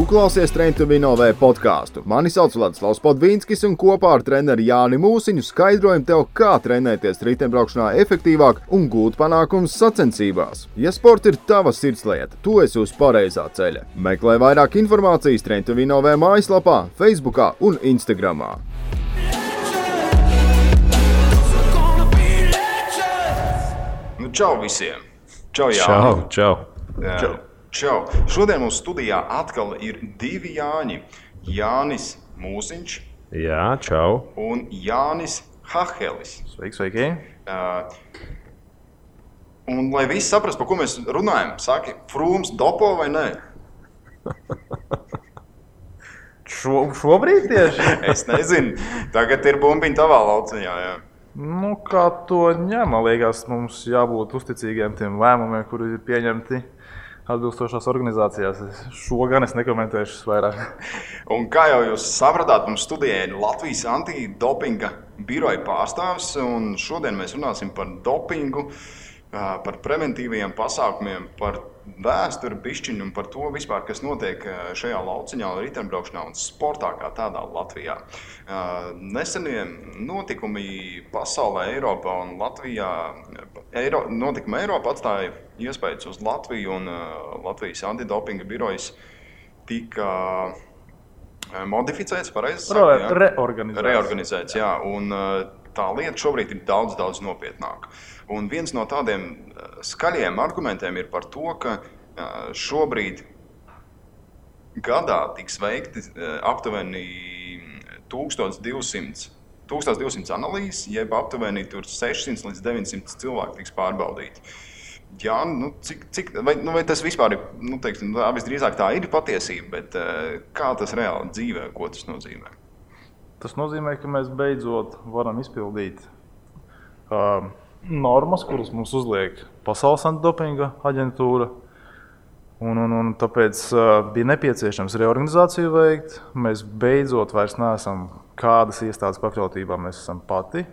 klausies Train to Win OV podcastu. Mani sauc Vladislavs Podvīnskis un kopā ar treneri Jāni Mūsiņu skaidrojam tev, kā trenēties riteņbraukšanā efektīvāk un gūt panākumus sacensībās. Ja sports ir tava sirdslieta, tu esi uz pareizā ceļa. Meklē vairāk informācijas Train to Win OV mājaslapā, Facebookā un Instagramā. Nu, čau visiem! Čau, Jāni! Čau! Čau! Šodien mums studijā atkal ir divi Jāņi. Jānis Mūsiņš. Jā, čau! Un Jānis Hahelis. Sveiki! Un lai visi saprast, par ko mēs runājam, saki, Frūms dopo vai nē? Šobrīd tieši? Es nezinu. Tagad ir bumbiņa tavā lauciņā, jā. Nu, kā to ņem, man liekas, mums jābūt uzticīgiem tiem lēmumiem, kuri ir pieņemti atbilstošās organizācijās. Šo gan es nekomentēšu vairāk. Un kā jau jūs sapratāt, mums studijā ir Latvijas antidopinga biroja pārstāvis, un šodien mēs runāsim par dopingu, par preventīviem pasākumiem, par vēsturi bišķiņu un par to vispār, kas notiek šajā lauciņā, riteņbraukšanā un sportā kā tādā Latvijā. Nesenie notikumi pasaulē, Eiropā un Latvijā, notikumi Eiropā atstāja iespējas uz Latviju, un Latvijas antidopinga birojas tika modificēts, pareizi sakot? Reorganizēts, jā. Un tā lieta šobrīd ir daudz nopietnāka. Un viens no tādiem skaļiem argumentiem ir par to, ka šobrīd gadā tiks veikti aptuveni 1200 analīzes, jeb aptuveni 600 līdz 900 cilvēki tiks pārbaudīti. Jā, vai tas vispār ir, visdrīzāk tā ir patiesība, bet kā tas reāli dzīvē, ko tas nozīmē? Tas nozīmē, ka mēs beidzot varam izpildīt normas, kuras mums uzliek Pasaules antidopinga aģentūra. Un tāpēc bija nepieciešams reorganizāciju veikt. Mēs beidzot vairs neesam kādas iestādes pakļautībā, mēs esam pati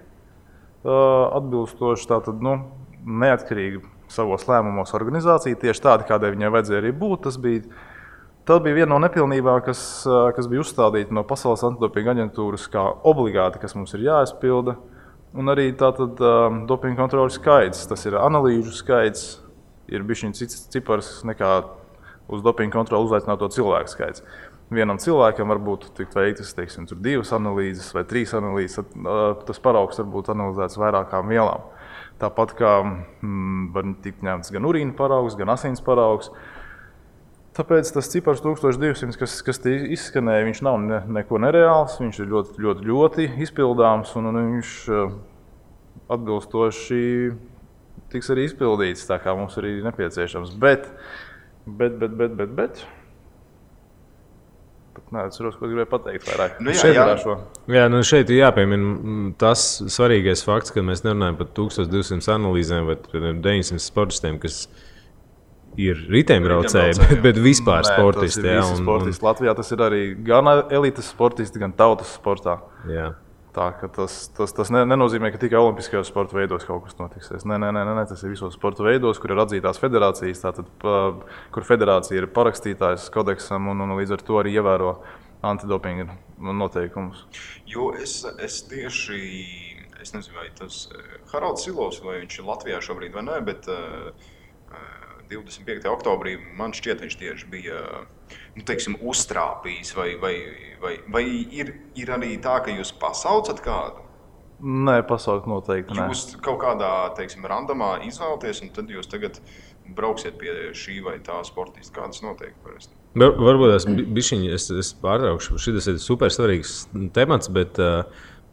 atbilstoši, tātad neatkarīgi savos lēmumos organizācija, tieši tāda, kādai viņai vajadzēja arī būt. Tas bija viena no nepilnībām, kas bija uzstādīta no Pasaules antidopinga aģentūras kā obligāti, kas mums ir jāizpilda. Un arī tātad dopinga kontroles skaits, tas ir analīžu skaits, ir bišķiņ cits cipars nekā uz dopinga kontroli uzaicināto cilvēku skaits. Vienam cilvēkam varbūt tikt veiktas, 2 analīzes vai 3 analīzes, tas paraugs var būt analizēts vairākām vielām. Tāpat kā var tikt ņemts gan urīna paraugs, gan asins paraugs. Tāpēc tas cipars 1200, kas te izskanēja, viņš nav neko nereāls, viņš ir ļoti izpildāms un viņš atbilstoši tiks arī izpildīts, tā kā mums arī nepieciešams. Bet. Neatceros, ko gribēju pateikt vairāk. Šeit ir jāpiemina tas svarīgais fakts, ka mēs nerunājam par 1200 analīzēm vai 900 sportistiem, kas ir riteņbraucēji, bet vispār sportisti. Tas ir visi sportisti. Latvijā tas ir arī gan elites sportisti, gan tautas sportā. Jā. Tā, ka tas nenozīmē, ka tikai olimpiskajos sporta veidos kaut kas notiksies. Nē, tas ir visos sporta veidos, kur ir atzītās federācijas, tātad, kur federācija ir parakstītājs kodeksam un līdz ar to arī ievēro antidopinga noteikumus. Jo es nezinu, vai tas Haralds Silovs, vai viņš ir Latvijā šobrīd vai ne, bet 25. oktobrī man šķiet, viņš tieši bija uztrāpījis, vai ir arī tā, ka jūs pasaucat kādu? Nē, pasaukt noteikti nē. Jūs kaut kādā, randomā izvēlaties, un tad jūs tagad brauksiet pie šī vai tā sportista, kā tas notiek parasti? Varbūt es pārtraukšu, šis ir super svarīgs temats, bet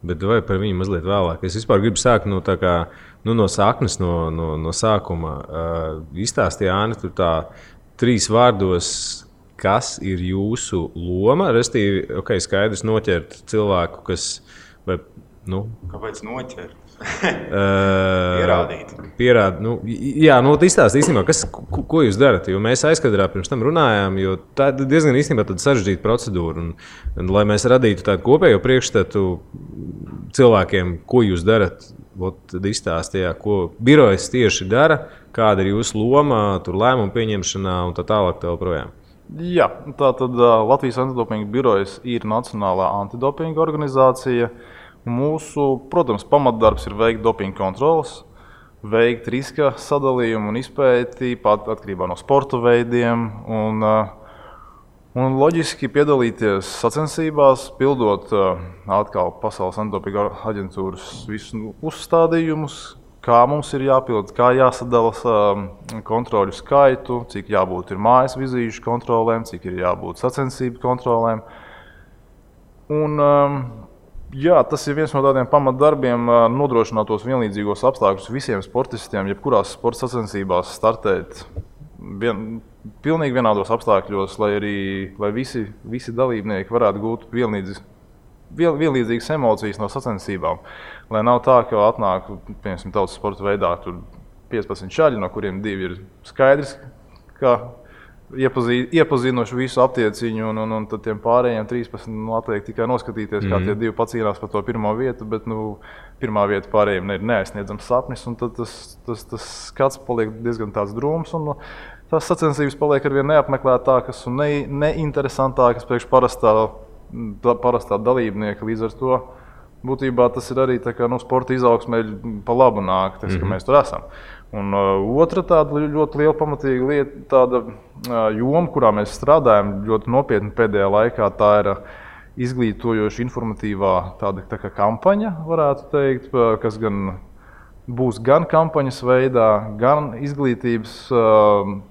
vai par viņu mazliet vēlāk. Es vispār gribu sākt no saknes, no sākuma. Izstāstīja Jāni, tur tā 3 vārdos, kas ir jūsu loma, restīvi, skaidrs noķert cilvēku, kas, Kāpēc noķert? Pierādīt. Izstāst īstenībā, ko jūs darat, jo mēs aizkadrā pirms tam runājām, jo tā ir diezgan īstenībā sarežģīta procedūra. Un, lai mēs radītu tādu kopējo priekšstatu cilvēkiem, ko jūs darat, tad izstāstījā, ko birojas tieši dara, kāda ir jūsu loma, tur lēmumu pieņemšanā un tā tālāk tā joprojām. Jā, tātad Latvijas antidopinga birojas ir Nacionālā antidopinga organizācija. Mūsu, protams, pamatdarbs ir veikt dopinga kontroles, veikt riska sadalījumu un izpēti atkarībā no sporta veidiem un loģiski piedalīties sacensībās, pildot atkal Pasaules antidopinga aģentūras visus uzstādījumus, kā mums ir jāpild, kā jāsadala kontroļu skaitu, cik jābūt ir mājas vizīšu kontrolēm, cik ir jābūt sacensību kontrolēm. Un, jā, tas ir viens no tādiem pamatdarbiem nodrošināt tos vienlīdzīgos apstākļus visiem sportistiem, jebkurās sporta sacensībās startēt pilnīgi vienādos apstākļos, lai visi dalībnieki varētu gūt vienlīdzīgas emocijas no sacensībām. Lai nav tā, ka atnāk, piemēram, tautas sporta veidā 15 šaļi, no kuriem 2 ir skaidrs, ka iepazinuši visu aptieciņu, un tad tiem pārējiem 13 atliek tikai noskatīties, kā tie 2 pacīnās par to pirmo vietu, bet pirmā vieta pārējiem ir neaizsniedzams sapnis, un tad tas skats paliek diezgan tāds drūms, un tās sacensības paliek arvien neapmeklētākas un neinteresantākas priekš parastā dalībnieka. Līdz ar to būtībā tas ir arī tā kā, sporta izaugsmē pa labu nāk, ka mēs tur esam. Un otra tāda ļoti liela pamatīga lieta, tāda joma, kurā mēs strādājam ļoti nopietni pēdējā laikā, tā ir izglītojoša informatīvā tāda tā kā kampaņa, varētu teikt, kas būs gan kampaņas veidā, gan izglītības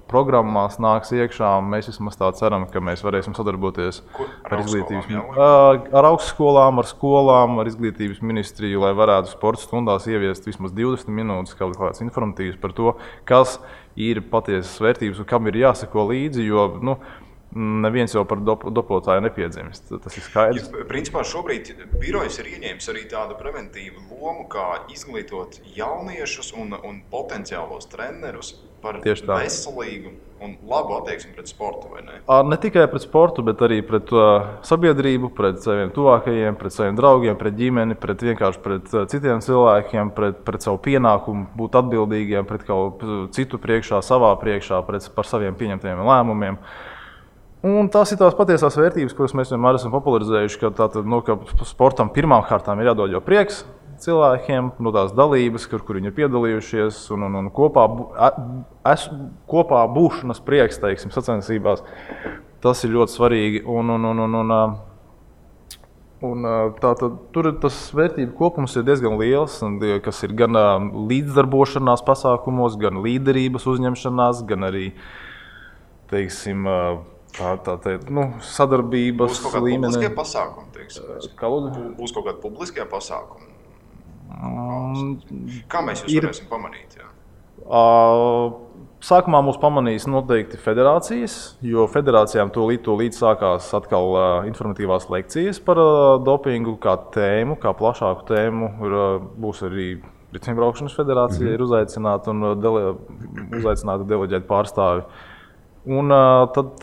programmās nāks iekšā. Mēs vismaz tā ceram, ka mēs varēsim sadarboties ar augstskolām, ar skolām, ar izglītības ministriju, lai varētu sporta stundās ieviest vismaz 20 minūtes kaut kāds informatīvs par to, kas ir patiesas vērtības un kam ir jāseko līdzi, jo neviens jau par dopotāju nepiedzimst. Tas ir skaidrs. Principā šobrīd birojas ir ieņēmis arī tādu preventīvu lomu, kā izglītot jauniešus un potenciālos trenerus par veselīgu un labu attieksmi pret sportu, vai ne? Ne tikai pret sportu, bet arī pret sabiedrību, pret saviem tuvākajiem, pret saviem draugiem, pret ģimeni, vienkārši pret citiem cilvēkiem, pret savu pienākumu būt atbildīgiem, pret kaut citu priekšā, savā priekšā, par saviem pieņemtajiem lēmumiem. Un tās ir tās patiesās vērtības, kuras mēs vienmēr esam popularizējuši, ka sportam pirmām kārtām ir jādod jau prieks cilvēkiem, no tās dalības, kur viņi ir piedalījušies, un kopā būšanas prieks, teiksim, sacensībās. Tas ir ļoti svarīgi. Tur tas vērtību kopums ir diezgan liels, kas ir gan līdzdarbošanās pasākumos, gan līderības uzņemšanās, gan arī, teiksim, sadarbības līmenī. Būs kaut kādi publiskie pasākumi, teiksim? Būs kaut kādi publiskie pasākumi? Kā mēs jūs varēsim pamanīt? Jā? Sākumā mūs pamanīs noteikti federācijas, jo federācijām tūlīt sākās atkal informatīvās lekcijas par dopingu kā tēmu, kā plašāku tēmu. Būs arī Riteņbraukšanas federācija ir uzaicināta un uzaicināta deleģēt pārstāvi. Un tad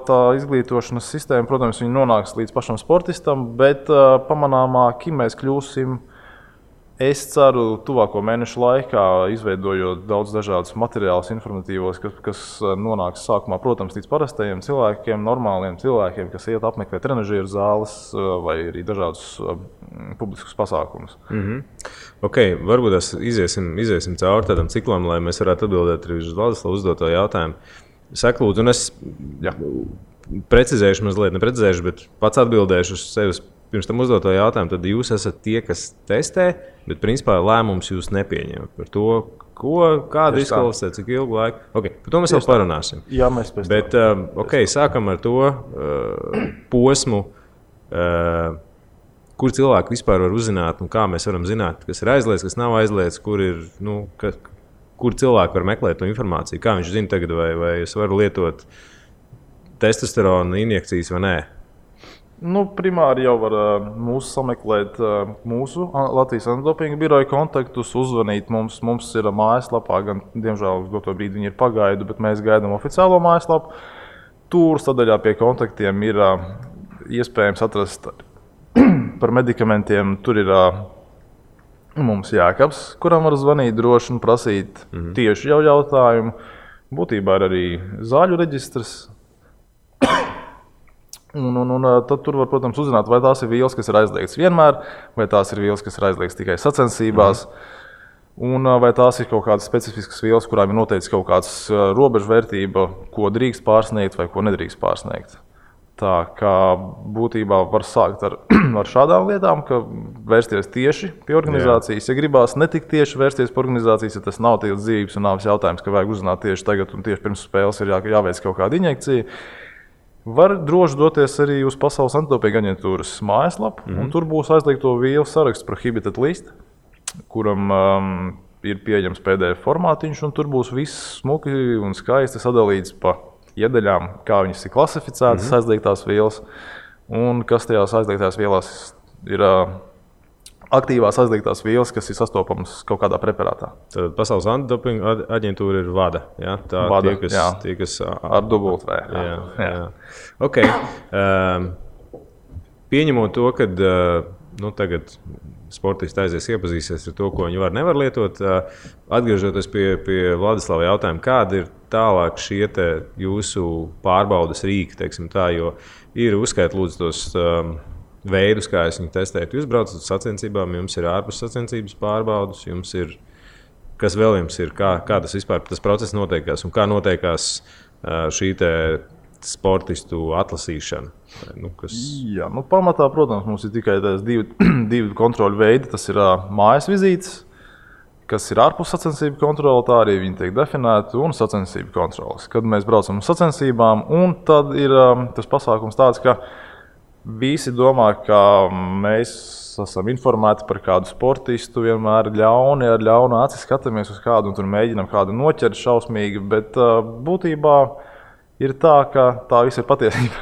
tā izglītošanas sistēma, protams, viņa nonāks līdz pašam sportistam, bet pamanāmāki mēs kļūsim, es ceru, tuvāko mēnešu laikā, izveidojot daudz dažādus materiālus informatīvos, kas nonāks sākumā, protams, līdz parastajiem cilvēkiem, normāliem cilvēkiem, kas iet apmeklē trenažieru zāles vai arī dažādus publiskus pasākumus. Okay, varbūt iziesim cauri tādam ciklam, lai mēs varētu atbildēt arī uz Vladislavu uzdoto jautājumu. Saka, lūdzu, un es precizēšu mazliet, neprecizēšu, bet pats atbildēšu uz sevis pirms tam uzdoto jautājumu. Tad jūs esat tie, kas testē, bet principā lēmums jūs nepieņemat par to, kādu izklausīt, cik ilgu laiku. Okay, par to mēs vēl parunāsim. Jā, mēs pēc tam. Bet sākam ar to posmu, kur cilvēki vispār var uzzināt un kā mēs varam zināt, kas ir aizliegts, kas nav aizliegts, kur cilvēki var meklēt to informāciju? Kā viņš zina tagad, vai es varu lietot testosterona injekcijas vai nē? Primāri jau var mūsu sameklēt mūsu Latvijas antidopinga biroja kontaktus, uzvanīt mums. Mums ir mājaslapā, gan, diemžēl, uz doto brīdi viņi ir pagaidu, bet mēs gaidām oficiālo mājaslapu. Tur sadaļā pie kontaktiem ir iespējams atrast par medikamentiem. Tur ir mums Jākabs, kuram var zvanīt droši un prasīt tieši jau jautājumu. Būtībā ir arī zāļu reģistrs. Un tad tur var, protams, uzzināt, vai tās ir vielas, kas ir aizliegtas vienmēr, vai tās ir vielas, kas ir aizliegtas tikai sacensībās, un vai tās ir kaut kādas specifiskas vielas, kurām ir noteikts kaut kāds robežvērtība, ko drīkst pārsniegt vai ko nedrīkst pārsniegt. Tā kā būtībā var sākt ar šādām lietām, ka vērsties tieši pie organizācijas. Ja gribās ne tik tieši vērsties pie organizācijas, ja tas nav tikai dzīves un nāves jautājums, ka vajag uzzināt tieši tagad un tieši pirms spēles ir jāveic kaut kāda injekcija, var droši doties arī uz Pasaules antidopinga aģentūras mājaslapu, un tur būs aizliegto vielu saraksts prohibited list, kuram ir pieejams PDF formātiņš, un tur būs viss smuki un skaisti sadalīts pa iedaļām, kā viņas ir klasificētas, aizliegtās vielas, un kas tajās aizliegtās vielās ir aktīvās aizliegtās vielas, kas ir sastopamas kaut kādā preparātā. Tad Pasaules antidopinga aģentūra ir VADA. Ja? Tā VADA, tie, kas ar dubultv. Jā. Okay. Pieņemot to, ka tagad sportisti aizies iepazīsies ar to, ko viņi nevar lietot, atgriežoties pie Vladislava jautājuma, kāda ir tālāk šie jūsu pārbaudes rīki, teiksim tā, jo ir uzskait lūdzu tos veidus, kā es viņu testēju. Jūs braucat uz sacensībām, jums ir ārpus sacensības pārbaudes, jums ir, kas vēl jums ir, kā tas vispār tas process notiekās un kā notiekās šī sportistu atlasīšana? Jā, pamatā, protams, mums ir tikai divi kontroļu veidi. Tas ir mājas vizītes, kas ir ārpus sacensību kontrole, tā arī viņi tiek definēti, un sacensību kontroles. Kad mēs braucam uz sacensībām, un tad ir tas pasākums tāds, ka visi domā, ka mēs esam informēti par kādu sportistu, vienmēr ar ļaunu aci skatāmies uz kādu un tur mēģinam kādu noķert šausmīgi, bet būtībā ir tā, ka tā viss ir patiesība.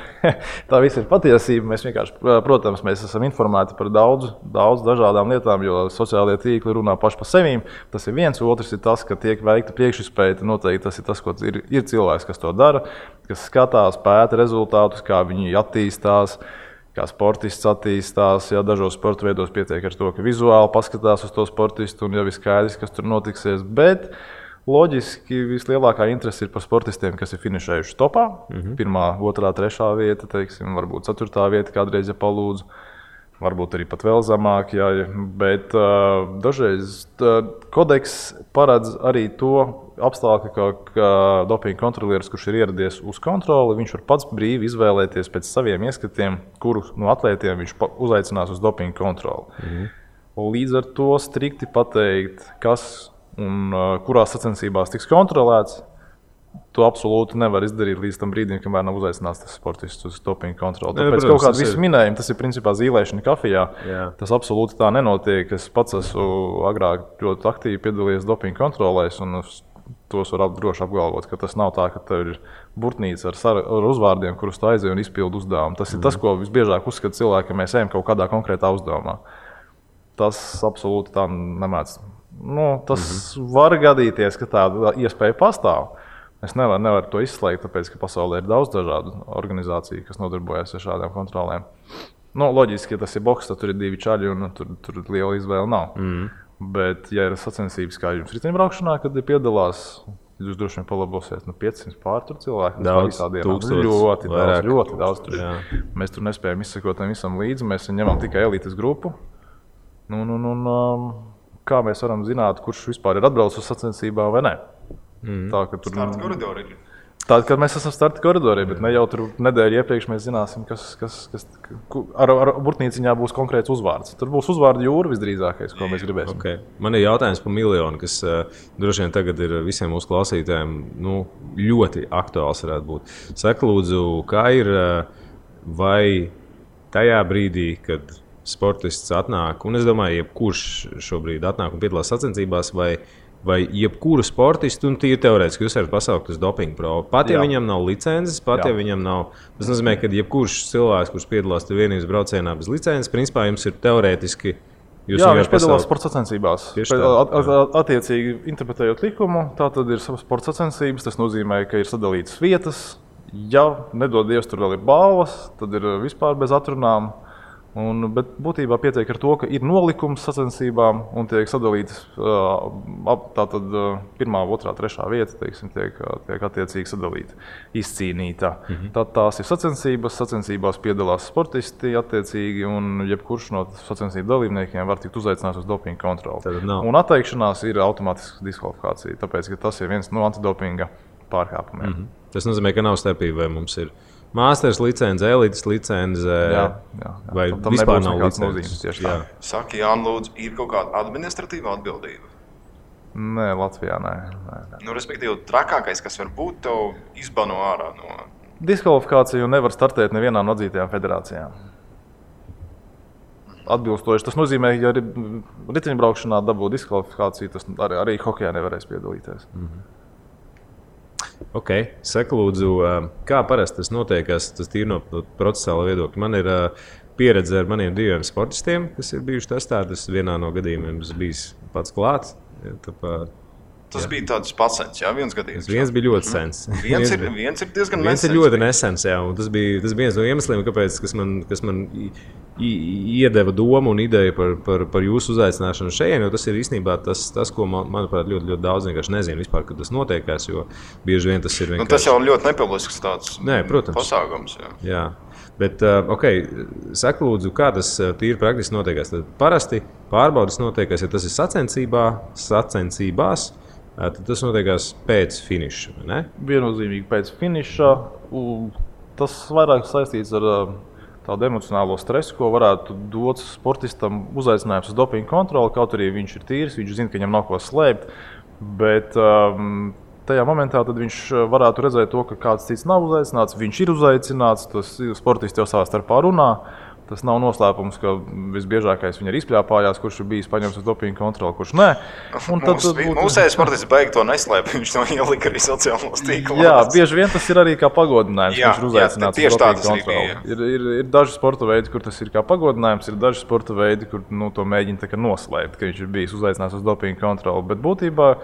Tā viss ir patiesība. Mēs vienkārši, protams, mēs esam informēti par daudz dažādām lietām, jo sociālie tīkli runā paši par sevīm. Tas ir viens, otrs ir tas, ka tiek veikta priekšizpēta. Noteikti tas ir tas, ko ir cilvēks, kas to dara, kas skatās, pēta rezultātus, kā viņi attīstās, kā sportists attīstās. Ja dažos sporta veidos pietiek ar to, ka vizuāli paskatās uz to sportistu un jau ir skaidrs, kas tur notiksies. Bet loģiski vislielākā interese ir par sportistiem, kas ir finišējuši topā. 1., 2., 3. vieta, teiksim, varbūt 4. vieta kādreiz, ja palūdzu. Varbūt arī pat vēl zemāk, jā, bet dažreiz kodeks paredz arī to apstākļu, ka dopinga kontrolieris, kurš ir ieradies uz kontroli, viņš var pats brīvi izvēlēties pēc saviem ieskatiem, kuru no atlētiem viņš uzaicinās uz dopinga kontroli. Līdz ar to strikti pateikt, kas un kurās sacensībās tiks kontrolēts, to absolūti nevar izdarīt līdz tam brīdim, kamēr nav uzaicināts tas sportists uz dopinga kontroli. Tāpēc kaut kādu visu minējumu, tas ir principā zīlēšana kafijā. Jā. Tas absolūti tā nenotiek. Es pats esmu agrāk ļoti aktīvi piedalījies dopinga kontrolēs, un tos var droši apgalvot, ka tas nav tā, ka tev ir burtnīca ar uzvārdiem, kurus tu aizej un izpildi uzdevumu. Tas ir tas, ko visbiežāk uzskata cilvēki, ka mēs ejam kaut kādā konkrētā uzdevumā. Tas absolūti tā nemēdz. Tas var gadīties, ka tāda iespēja pastāv. Es nevaru to izslēgt, tāpēc, ka pasaulē ir daudz dažādu organizāciju, kas nodarbojas ar šādām kontrolēm. Loģiski, ja tas ir boks, tad tur ir 2 čaļi un tur liela izvēle nav. Bet, ja ir sacensības kā jums riteņbraukšanā, kad piedalās, jūs droši vien palabosiet 500 pār tur cilvēku. Daudz, ļoti daudz tur ir. Mēs tur nespējam izsekot tam visam līdzi, mēs ņemam tikai elites grupu. Kā mēs varam zināt, kurš vispār ir atbraucis uz sacensībām vai ne? Tā, ka tur starta koridori ir. Tāda, kad mēs esam starta koridorī, bet ne jau tur nedēļu iepriekš mēs zināsim, kas ar burtnīciņā būs konkrēts uzvārds. Tur būs uzvārdu jūra visdrīzākais, ko mēs gribēsim. Okay. Man ir jautājums par miljonu, kas droši vien tagad ir visiem mūsu klausītājiem ļoti aktuāls varētu būt. Saka, lūdzu, kā ir vai tajā brīdī, kad sportists atnāk, un es domāju, jebkurš šobrīd atnāk un piedalās sacensībās, vai jebkuru sportistu, un tīri teorētiski jūs varat pasaukt uz dopinga probu. Pat ja viņam nav licences, ja viņam nav. Tas nozīmē, ka jebkurš cilvēks, kurš piedalās vienības braucienā bez licences, principā jums ir teorētiski. Viņš piedalās sporta sacensībās. Attiecīgi interpretējot likumu, tā tad ir sporta sacensības. Tas nozīmē, ka ir sadalītas vietas. Ja nedod Dievs, tur vēl ir balvas, tad ir vispār bez atrunām. Bet būtībā pietiek ar to, ka ir nolikums sacensībām un tiek sadalītas tātad 1., 2., 3. vieta, teiksim, tiek attiecīgi sadalīta, izcīnīta. Tad tās ir sacensībās piedalās sportisti attiecīgi un jebkurš no sacensību dalībniekiem var tikt uzaicināts uz dopinga kontroli. Un atteikšanās ir automātiska diskvalifikācija, tāpēc, ka tas ir viens no antidopinga pārkāpumiem. Tas nozīmē, ka nav starpība, vai mums ir Māsters licence, elites licence, vai vispār nav licences. Saka, Jāni, lūdzu, ir kaut kāda administratīva atbildība? Nē, Latvijā nē. Respektīvi, trakākais, kas var būt, tev izbano ārā no... Diskvalifikāciju nevar startēt nevienā no atzītajām federācijām. Atbilstoši. Tas nozīmē, ja riteņbraukšanā dabū diskvalifikāciju, tas arī hokejā nevarēs piedalīties. Ok, saka lūdzu, kā parasti tas notiekās, tas tīri no procesāla viedokļa. Man ir pieredze ar maniem 2 sportistiem, kas ir bijuši testēti. Tas vienā no gadījumiem bijis pats klāts. Tas bija tāds pats sens, viens gadījums. Viens bija ļoti sens. Viens ir diezgan nesens. Viens ir ļoti nesens, un tas bija viens no iemesliem, kāpēc, kas man iedeva domu un ideju par jūsu uzaicināšanu šeit, jo tas ir īstenībā tas ko, manuprāt, ļoti daudz vienkārši nezinu vispār, kad tas notiekās, jo bieži vien tas ir vienkārši... Tas jau ļoti nepilnisks tāds pasākums. Jā. Bet, saka lūdzu, kā tas tīri praktiski notiekās? Tad parasti pārbaudas notiekās, ja tas ir sacensībās, tad tas notiekās pēc finiša, ne? Viennozīmīgi pēc finiša. Tas vairāk saistīts ar tādu emocionālo stresu, ko varētu dot sportistam uzaicinājums uz dopinga kontroli. Kaut arī viņš ir tīrs, viņš zina, ka viņam nav ko slēpt. Bet tajā momentā tad viņš varētu redzēt to, ka kāds cits nav uzaicināts. Viņš ir uzaicināts, tas sportisti jau savā starpā runā. Tas nav noslēpums, ka visbiežākais viņa ir izpļāpājās, kurš ir bijis paņemts uz dopinga kontroli, kurš nē. Mūsējais sportists beig to neslēp, viņš to ielika arī sociālos tīklos. Jā, bieži vien tas ir arī kā pagodinājums, kurš ir uzaicināts uz dopinga kontroli. Ir daži sporta veidi, kur tas ir kā pagodinājums, ir daži sporta veidi, kur to mēģina tā kā noslēpt, ka viņš ir bijis uzaicināts uz dopinga kontroli. Bet būtībā,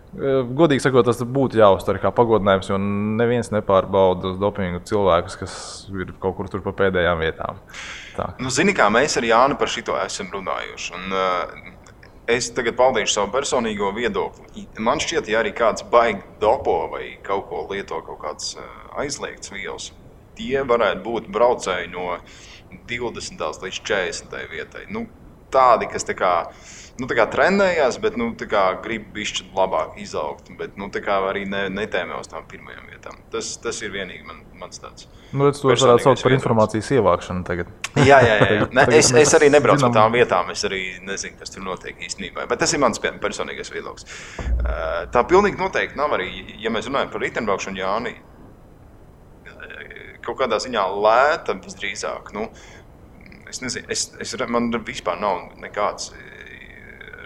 godīgi sakot, tas būtu jāuztver kā pagodinājums, jo neviens nepārbauda uz dopingu cilvēkus, kas ir kaut kur tur pa pēdējām vietām. Zini, kā mēs ar Jāni par šito esam runājuši. Es tagad paudīšu savu personīgo viedokli. Man šķiet, ja arī kāds baigi dopo vai kaut ko lieto, kaut kāds aizliegts vielas, tie varētu būt braucēji no 20. līdz 40. vietai. Tādi, kas tā kā trenējās, bet grib bišķi labāk izaugt, bet arī netēmē uz tām pirmajām vietām. Tas ir vienīgi mans tāds. Es to varētu saukt par informācijas ievākšanu tagad. Jā. Es arī nebraucu no tām vietām, es arī nezinu, kas tur notiek īstenībā, bet tas ir mans personīgais viedoklis. Tā pilnīgi noteikti nav arī, ja mēs runājam par riteņbraukšanu, Jāni, kaut kādā ziņā lēta visdrīzāk. Es nezinu, man vispār nav nekāds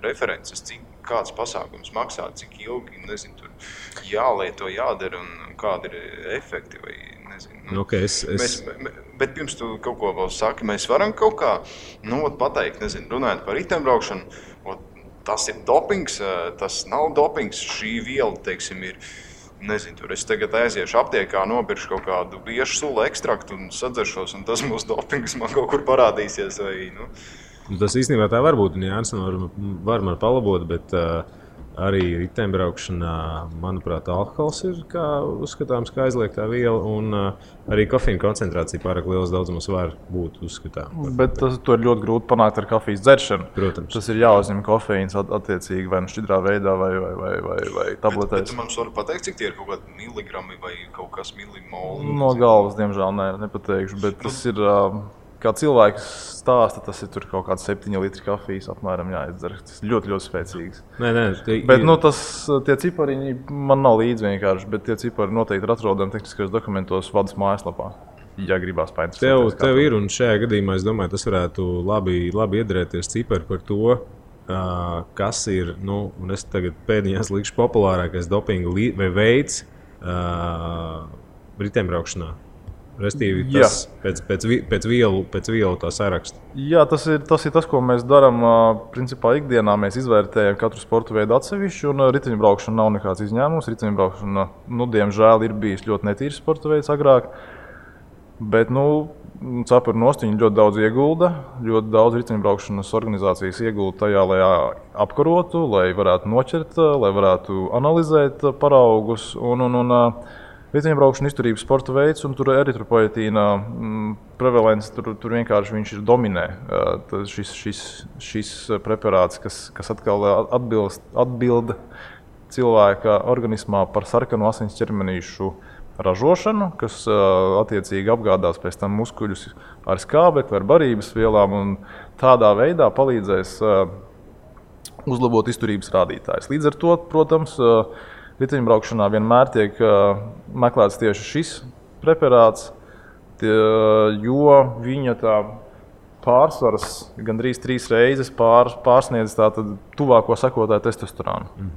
references, cik kāds pasākums maksā, cik ilgi, nezinu, tur jālieto, jādara un kādi ir efekti vai nezinu. Okay, bet pirms tu kaut ko vēl saki, mēs varam kaut kā pateikt, nezinu, runājot par riteņbraukšanu, tas ir dopings, tas nav dopings, šī viela, teiksim, ir. Nezinu, tur es tagad aiziešu aptiekā, nopirkšu kaut kādu biešu sula ekstraktu un sadzeršos, un tas mūsu dopings man kaut kur parādīsies. Tas īstenībā tā var būt, un Jānis var man palabot, bet arī riteņbraukšanā, manuprāt, alkohols ir uzskatāms kā aizliegtā viela, un arī kofīna koncentrācija pārāk lielas daudzumos var būt uzskatāms. Bet to ir ļoti grūti panākt ar kafijas dzeršanu. Protams. Tas ir jāuzņem kofīns attiecīgi vai šķidrā veidā vai tabletēs. Bet tu man vari pateikt, cik tie ir kaut kādi miligrami vai kaut kas milimoli? No galvas, diemžēl, nepateikšu, bet tas ir... Kā cilvēks stāsta, tas ir tur kaut kāds 7 litri kafijas apmēram jāizdzer. Tas ir ļoti, ļoti spēcīgs. Bet tie cipariņi man nav līdzi vienkārši, bet tie cipari noteikti ir atrodami tehniskajos dokumentos vadas mājaslapā. Ja gribās painteresēties. Tev ir, un šajā gadījumā, es domāju, tas varētu labi iedarēties cipari par to, kas ir, un es tagad pēdiņās likšu populārākais dopinga veids riteņbraukšanā. Restīvi, tas pēc vielu tā saraksta. Jā, tas ir tas, ko mēs darām. Principā ikdienā mēs izvērtējam katru sporta veidu atsevišķi, un riteņbraukšana nav nekāds izņēmums. Riteņbraukšana, diemžēl, ir bijis ļoti netīrs sporta veids agrāk. Bet, cepuri nost viņi ļoti daudz iegulda, ļoti daudz riteņbraukšanas organizācijas iegulda tajā, lai apkarotu, lai varētu noķert, lai varētu analizēt paraugus. Riteņbraukšana izturības sporta veids, un tur eritropoietīna prevalence, tur vienkārši viņš ir dominē. Šis preparāts, kas atkal atbilda cilvēka organismā par sarkanu asins ķermenīšu ražošanu, kas attiecīgi apgādās pēc tam muskuļus ar skābekli, ar barības vielām, un tādā veidā palīdzēs uzlabot izturības rādītājus. Līdz ar to, protams, riteņbraukšanā vienmēr tiek meklēts tieši šis preparāts, jo viņa tā pārsvars gandrīz 3 reizes pārsniedz tātad tuvāko sekotāju testosteronu.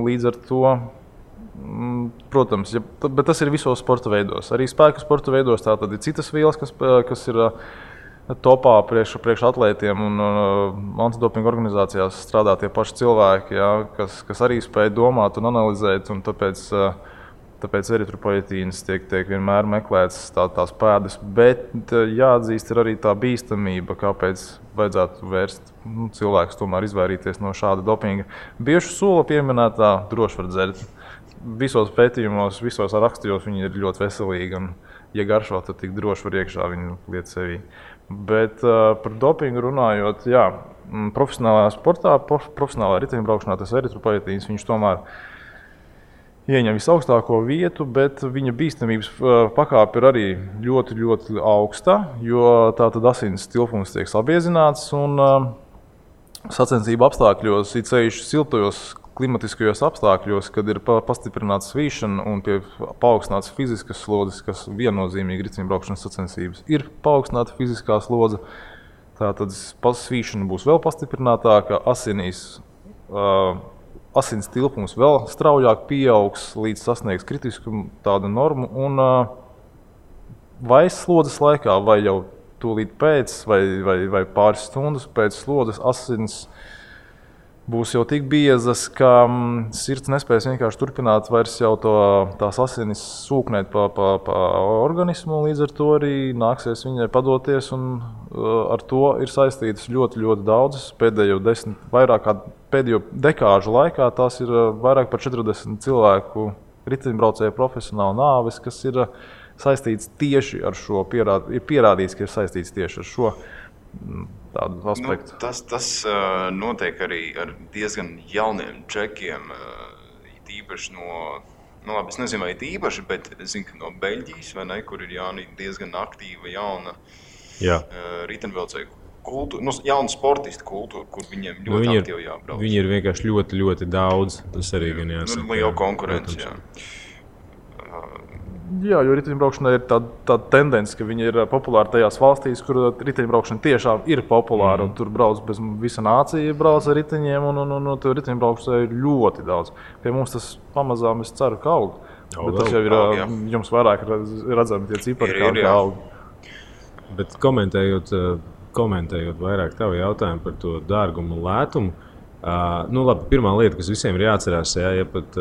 Līdz ar to, protams, bet tas ir visos sporta veidos. Arī spēku sporta veidos tātad ir citas vielas, kas ir topā priekš atlētiem, un antidopinga organizācijās strādā tie paši cilvēki, kas arī spēj domāt un analizēt, un tāpēc eritropoietīnas tiek vienmēr meklēts tās pēdas, bet jāatzīst ir arī tā bīstamība, kāpēc vajadzētu vērst cilvēkus tomēr izvairīties no šāda dopinga. Biežu sula pieminētā droši var dzert. Visos pētījumos, visos rakstos viņi ir ļoti veselīgi, un ja garšo, tad tik droši var iekšā viņu liet sevī. Bet par dopingu runājot, profesionālajā sportā, profesionālajā riteņbraukšanā tas eritropoietīns, viņš tomēr ieņem visaugstāko vietu, bet viņa bīstamības pakāpe ir arī ļoti, ļoti augsta, jo tātad asins tilpums tiek sabiezināts, un sacensību apstākļos, it sevišķi siltajos klimatiskajos apstākļos, kad ir pastiprināta svīšana un paaugstināts fiziskas slodzes, kas viennozīmīgi riteņbraukšanas sacensības ir paaugstināta fiziskā slodze, tātad svīšana būs vēl pastiprinātāka, asins tilpums vēl straujāk pieaugs, līdz sasniegs kritisku tādu normu, un vai slodzes laikā, vai jau tūlīt pēc, vai pāris stundas pēc slodzes asins būs jau tik biezas, ka sirds nespēs vienkārši turpināt vairs jau tās asinis sūknēt pa organismu, līdz ar to arī nāksies viņai padoties, un ar to ir saistītas ļoti, ļoti daudzas. Pēdējo dekāžu laikā tās ir vairāk par 40 cilvēku riteņbraucēju profesionālu nāves, kas ir saistīts tieši ar šo, ir pierādīts, ka ir saistīts tieši ar šo tādu aspektu. Tas notiek arī ar diezgan jauniem čekiem, īpaši labi, es nezinu, vai īpaši, bet es zinu, ka no Beļģijas, vai ne, kur ir diezgan aktīva jauna riteņbraucēju kultūra, jauna sportistu kultūra, kur viņiem ļoti aktīvi jābrauc. Viņi ir vienkārši ļoti, ļoti daudz, tas arī gan jāsaka. Liela konkurence, Jā, jo riteņbraukšanai ir tāda tendence, ka viņi ir populāri tajās valstīs, kur riteņbraukšana tiešām ir populāra, un tur brauc bez visa nācija brauc ar riteņiem, un tur riteņbraukšanai ir ļoti daudz. Pie mums tas pamazām, es ceru, ka aug. Bet tas jau ir jums vairāk redzami tie cipari, kā aug. Bet komentējot vairāk tavu jautājumu par to dārgumu un lētumu, labi, pirmā lieta, kas visiem ir jāatcerās, ja pat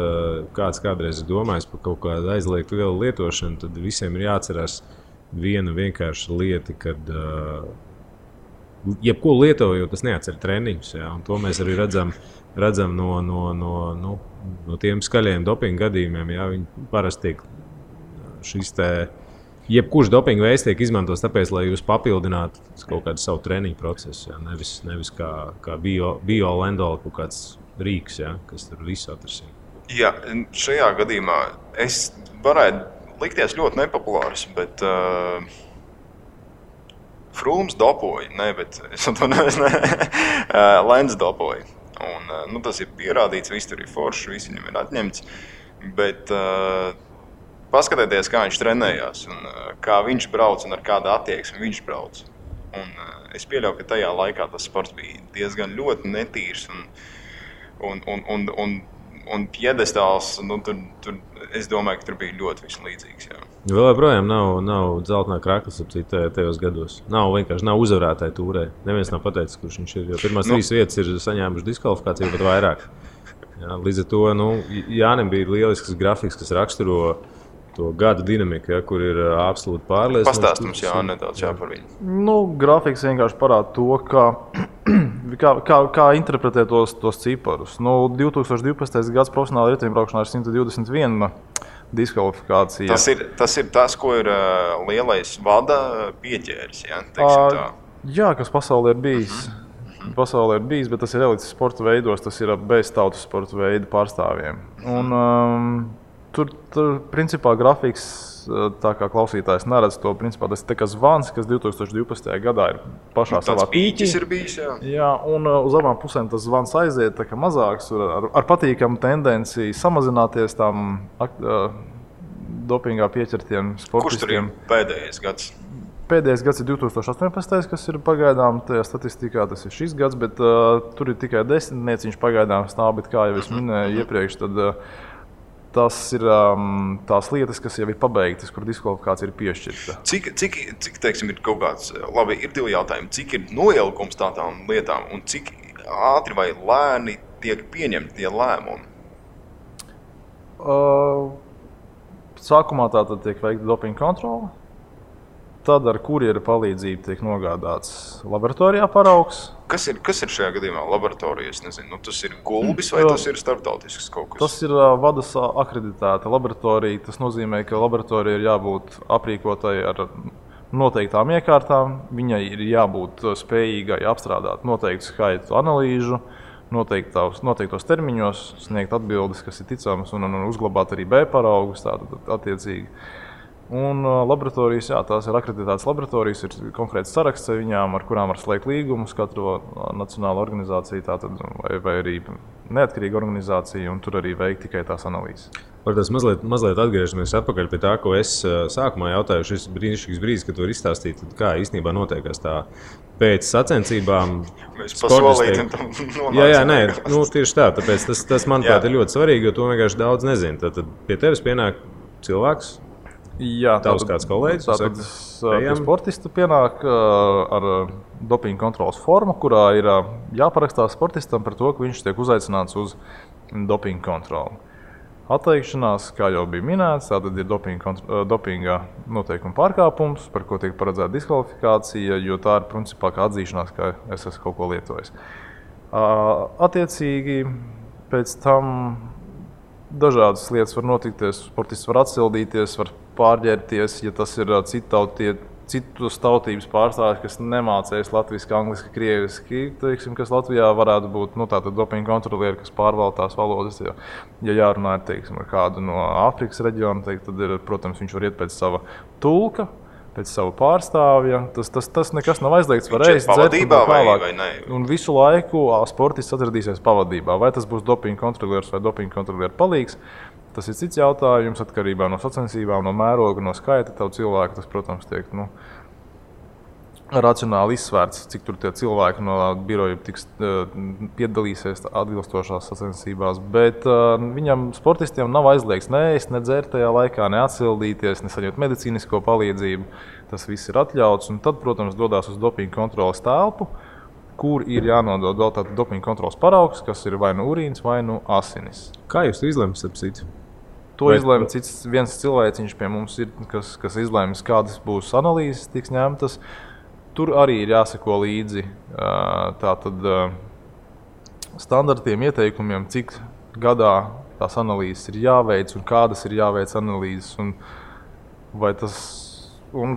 kāds kādreiz ir domājis par kaut kādu aizliegtu vielu lietošanu, tad visiem ir jāatcerās viena vienkārša lieta, kad jebko lietojot, tas neatcer treniņus. Ja, un to mēs arī redzam no tiem skaļajiem dopinga gadījumiem. Ja, viņi parasti tiek jebkurš dopinga veids tiek izmantots tāpēc, lai jūs papildinātu kaut kādu savu treniņu procesu. Ja? Nevis kā bio-lendola kaut kāds rīks, ja? Kas tur visu atrasina. Jā, šajā gadījumā es varētu likties ļoti nepopulārs, bet Frūms dopoja, Lenz dopoja. Un, tas ir pierādīts, viss tur ir forši, viss viņam ir atņemts, bet paskatieties, kā viņš trenējās, un kā viņš brauc un ar kādu attieksmi viņš brauc. Un es pieļauju, ka tajā laikā tas sports bija diezgan ļoti netīrs un piedestāls. Tur, es domāju, ka tur bija ļoti viss līdzīgs. Jā. Vēl joprojām nav dzeltenā kraklas tajos gados. Nav uzvarētāji tūrē. Neviens nav pateicis, kurš viņš ir. Jo pirmās 3 vietas ir saņēmuši diskvalifikāciju pat vairāk. Jā, līdz ar to Jānim bija lielisks grafiks, kas raksturo to gada dinamiku, ja, kur ir absolūti pārliecināts. Pastāst mums nedaudz par viņu. Grafiks vienkārši parāda to, kā interpretē tos ciparus. 2012. gads profesionāla riteņbraukšanā ir 121 diskvalifikācija. Tas ir tas, ko ir lielais vada pieķēris. Jā, kas pasaulē ir bijis. Pasaulē ir bijis, bet tas ir elites sporta veidos, tas ir bez tautas sporta veidu pārstāvjiem. Un, Tur principā grafiks, tā kā klausītājs neredz to, principā tas ir zvans, kas 2012. gadā ir pašā savā pīķis ir bijis, jā, un uz abām pusēm tas zvans aiziet tā kā mazāks, ar patīkamu tendenci samazināties tām dopingā pieķertiem sportistiem. Kurš tur ir pēdējais gads? Pēdējais gads ir 2018, kas ir pagaidām tajā statistikā, tas ir šis gads, bet tur ir tikai 10 nieciņš pagaidām stāv, bet kā jau es minēju iepriekš, tad tas ir tās lietas, kas jau ir pabeigtas, kur diskvalifikācija ir piešķirta. Cik teiksim, ir kaut kāds, labi, ir divi jautājumi, cik ir noilgums tādām lietām un cik ātri vai lēni tiek pieņemti tie lēmumi? Sākumā tātad tiek veikta dopinga kontrole, tad ar kurjera palīdzību tiek nogādāts laboratorijā paraugs. Kas ir šajā gadījumā laboratorijas? Nezinu, tas ir gulbis vai tas ir starptautisks kaut kas? Tas ir vadas akreditēta laboratorija. Tas nozīmē, ka laboratorija ir jābūt aprīkotai ar noteiktām iekārtām. Viņai ir jābūt spējīgai apstrādāt noteiktu skaitu analīžu, noteiktos termiņos, sniegt atbildes, kas ir ticamas, un uzglabāt arī B paraugus attiecīgi. Un laboratorijas, jā, tās ir akreditētas laboratorijas, ir konkrēts saraksts ar viņām, ar kurām var slēgt līgumus, katru nacionālu organizāciju, tātad, vai arī neatkarīga organizācija, un tur arī veikt tikai tās analīzes. Par tas mazliet atgriežamies atpakaļ pie tā, ko es sākumā jautāju, šis brīnišķīgs brīdis, kad tu vari izstāstīt, kā īstenībā notiekās tā pēc sacensībām. Mēs pasolītam tam nonācam. Jā, nē, tieši tā, tāpēc tas manuprāt ir ļoti svarīgi, jo to vienkārši daudz nezinu. Tad pie tevis pienāk cilvēks. Jā, tavs kāds kolēģis. Tātad sportisti pienāk ar dopinga kontrolas formu, kurā ir jāparakstās sportistam par to, ka viņš tiek uzaicināts uz dopinga kontroli. Atteikšanās, kā jau bija minēts, tātad ir dopinga noteikuma pārkāpums, par ko tiek paredzēta diskvalifikācija, jo tā ir principā kā atzīšanās, ka es esmu kaut ko lietojis. Attiecīgi, pēc tam dažādas lietas var notikties, sportists var atsildīties, var pārģērties, ja tas ir citus tautības pārstāvjus, kas nemācējas latviski, angliski, krieviski, teiksim, kas Latvijā varētu būt tātad dopinga kontrolieri, kas pārvalda tās valodas. Ja jārunā teiksim, ar kādu no Āfrikas reģiona, tad ir, protams, viņš var iet pēc sava tulka, pēc sava pārstāvja. Tas nekas nav aizliegts, var ēst, dzert un tā tālāk. Un visu laiku sportists atradīsies pavadībā. Vai tas būs dopinga kontrolieris vai dopinga kontroliera palīgs, tas ir cits jautājums, atkarībā no sacensībām, no mēroga, no skaita tavu cilvēku. Tas, protams, tiek racionāli izsvērts, cik tur tie cilvēki no biroja piedalīsies atbilstošās sacensībās. Bet viņam, sportistiem, nav aizliegts ne ēst, ne dzert tajā laikā, ne atsildīties, ne saņemt medicīnisko palīdzību. Tas viss ir atļauts. Un tad, protams, dodās uz dopinga kontroles telpu, kur ir jānodod vēl tātad dopinga kontroles paraugs, kas ir vai nu urīns, vai nu asinis. Kā jūs to izlemat, ap citu? To izlēma viens cilvēciņš pie mums, ir, kas izlēms, kādas būs analīzes tiks ņemtas. Tur arī ir jāseko līdzi tātad standartiem, ieteikumiem, cik gadā tās analīzes ir jāveic un kādas ir jāveic analīzes. Un,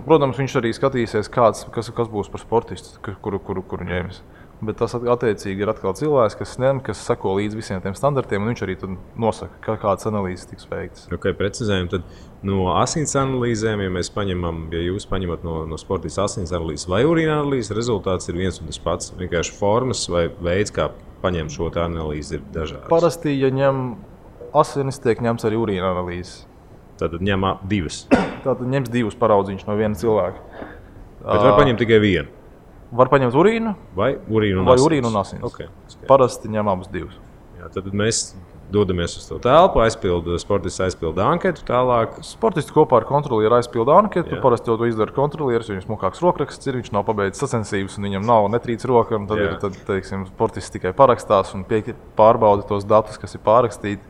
protams, viņš arī skatīsies, kas būs par sportistu, kuru ņems. Bet tas attiecīgi ir atkal cilvēks, kas seko līdz visiem tiem standartiem, un viņš arī nosaka, kādas analīzes tiks veiktas. Okay, precizējam, tad no asins analīzēm, ja jūs paņemat no sportista asins analīzes vai urīna analīzes, rezultāts ir viens un tas pats. Vienkārši formas vai veids, kā paņemt šo analīzi, ir dažāds. Parasti, ja ņem asinis, tiek ņemts arī urīna analīzes. Tātad ņem divas. Tātad ņems divus paraudziņus no viena cilvēka. Bet var paņemt tikai vienu. Var paņemt urīnu vai urīnu un asins. Okay. Parasti ņem abus divus. Jā, tad mēs dodamies uz to telpu, sportists aizpilda anketu tālāk. Sportists kopā ar kontrolieru aizpilda anketu. Jā. Parasti to izdara kontrolieris, viņam smukāks rokraksts ir, viņš nav pabeidzis sacensības un viņam nav netrīc roka. Tad teiksim, sportists tikai parakstās un pārbauda tos datus, kas ir pārakstīti.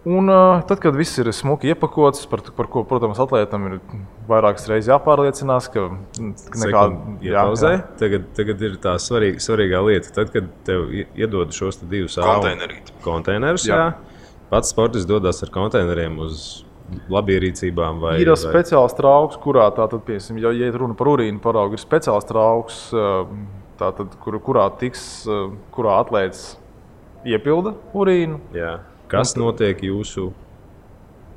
Un tad, kad viss ir smuki iepakots, par ko, protams, atlētam ir vairākas reizes jāpārliecinās, ka nekāda tagad ir tā svarīgā lieta. Tad, kad tev iedod šos divus konteinerus, pats sportists dodas ar konteineriem uz labierīcībā. Ir speciāls trauks, kurā tātad, piemēram, ja ir runa par urīnu paraugu, ir speciāls trauks, tātad, kurā atlēts iepilda urīnu. Jā. Kas notiek jūsu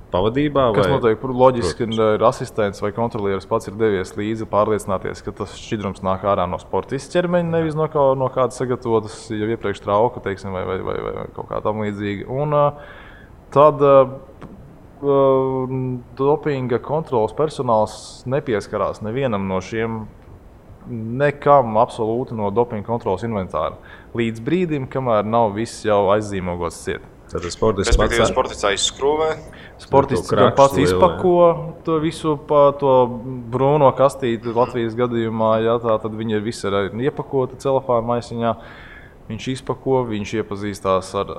pavadībā? Kas notiek? Loģiski, ka ir asistents vai kontrolieris pats ir devies līdzi pārliecināties, ka tas šķidrums nāk ārā no sportista ķermeņa, nevis no kādas sagatavotas jau iepriekš trauka, teiksim, vai kaut kā tam līdzīga. Un tad dopinga kontrolas personāls nepieskarās nevienam no šiem nekam absolūti no dopinga kontrolas inventāra. Līdz brīdim, kamēr nav viss jau aizzīmogots ciet. Tātad sportists aizskrūvē. Sportists pats izpako to visu to brūno kastīti Latvijas gadījumā. Jā, tad viņi visi ir iepakoti celofāna maisiņā. Viņš izpako, viņš iepazīstās ar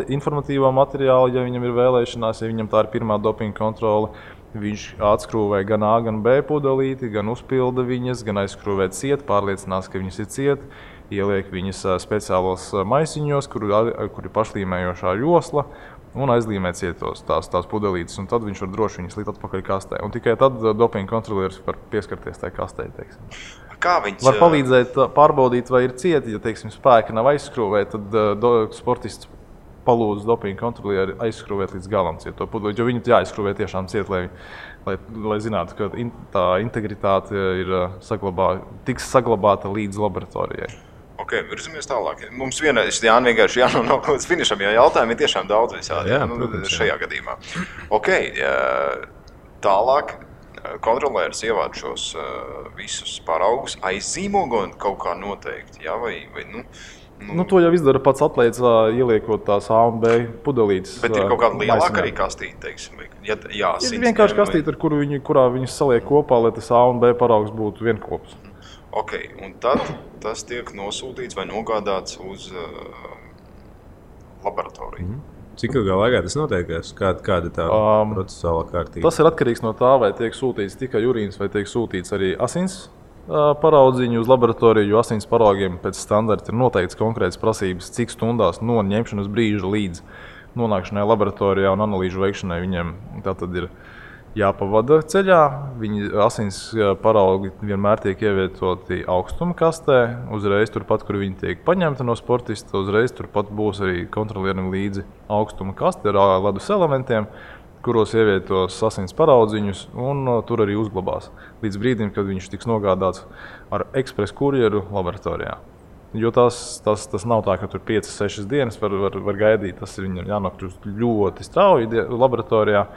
informatīvo materiālu, ja viņam ir vēlēšanās, ja viņam tā ir pirmā dopinga kontrole. Viņš atskrūvē gan A, gan B pudelīti, gan uzpilda viņas, gan aizskrūvē ciet, pārliecinās, ka viņas ir ciet. Ieliek viņas speciālos maisiņos, kur ir pašlīmējošā josla, un aizlīmē cietos tās pudelītes. Un tad viņš var droši viņas likt atpakaļ kastē. Un tikai tad dopinga kontrolieris var pieskarties tai kastē. Var palīdzēt pārbaudīt, vai ir cieti. Ja teiksim, spēki nav aizskrūvēti, tad sportists palūdz dopinga kontrolieri aizskrūvēt līdz galam cieto pudelīti. Jo viņi jāaizskrūvē tiešām ciet, lai zinātu, ka tā integritāte tiks saglabāta līdz laboratorijai. Virzamies tālāk. Mums vienkārši jānonāk līdz finišam, jo jautājumi ir tiešām daudz visādi šajā gadījumā. Tālāk kontrolieris ievāc šos visus paraugus, aizzīmogo kaut kā noteikti, jā, vai to jau izdara pats atlēts, ieliekot tās A un B pudelītes. Bet ir kaut kāda lielāka arī kastīte, teiksim, ir vienkārši kastīte, kurā viņus saliek kopā, lai tas A un B paraugs būtu vienkops. Un tad tas tiek nosūtīts vai nogādāts uz laboratoriju. Cik ilgā laikā tas notiek? Kāda tā procesuālā kārtība? Tas ir atkarīgs no tā, vai tiek sūtīts tikai urīns, vai tiek sūtīts arī asins paraudziņu uz laboratoriju, jo asins paraugiem pēc standarta ir noteikts konkrētas prasības, cik stundās no ņemšanas brīža līdz nonākšanai laboratorijā un analīžu veikšanai viņiem tātad ir jāpavada ceļā. Viņi asins paraugi vienmēr tiek ievietoti augstuma kastē, uzreiz turpat, kur viņi tiek paņemti no sportista, uzreiz turpat būs arī kontrolierim līdzi augstuma kaste ar ledus elementiem, kuros ievietos asins paraudziņus un tur arī uzglabās. Līdz brīdim, kad viņš tiks nogādāts ar ekspres kurjeru laboratorijā. Jo tas nav tā, ka tur 5-6 dienas var gaidīt, tas ir viņam jānokļūst ļoti strauji laboratorijā.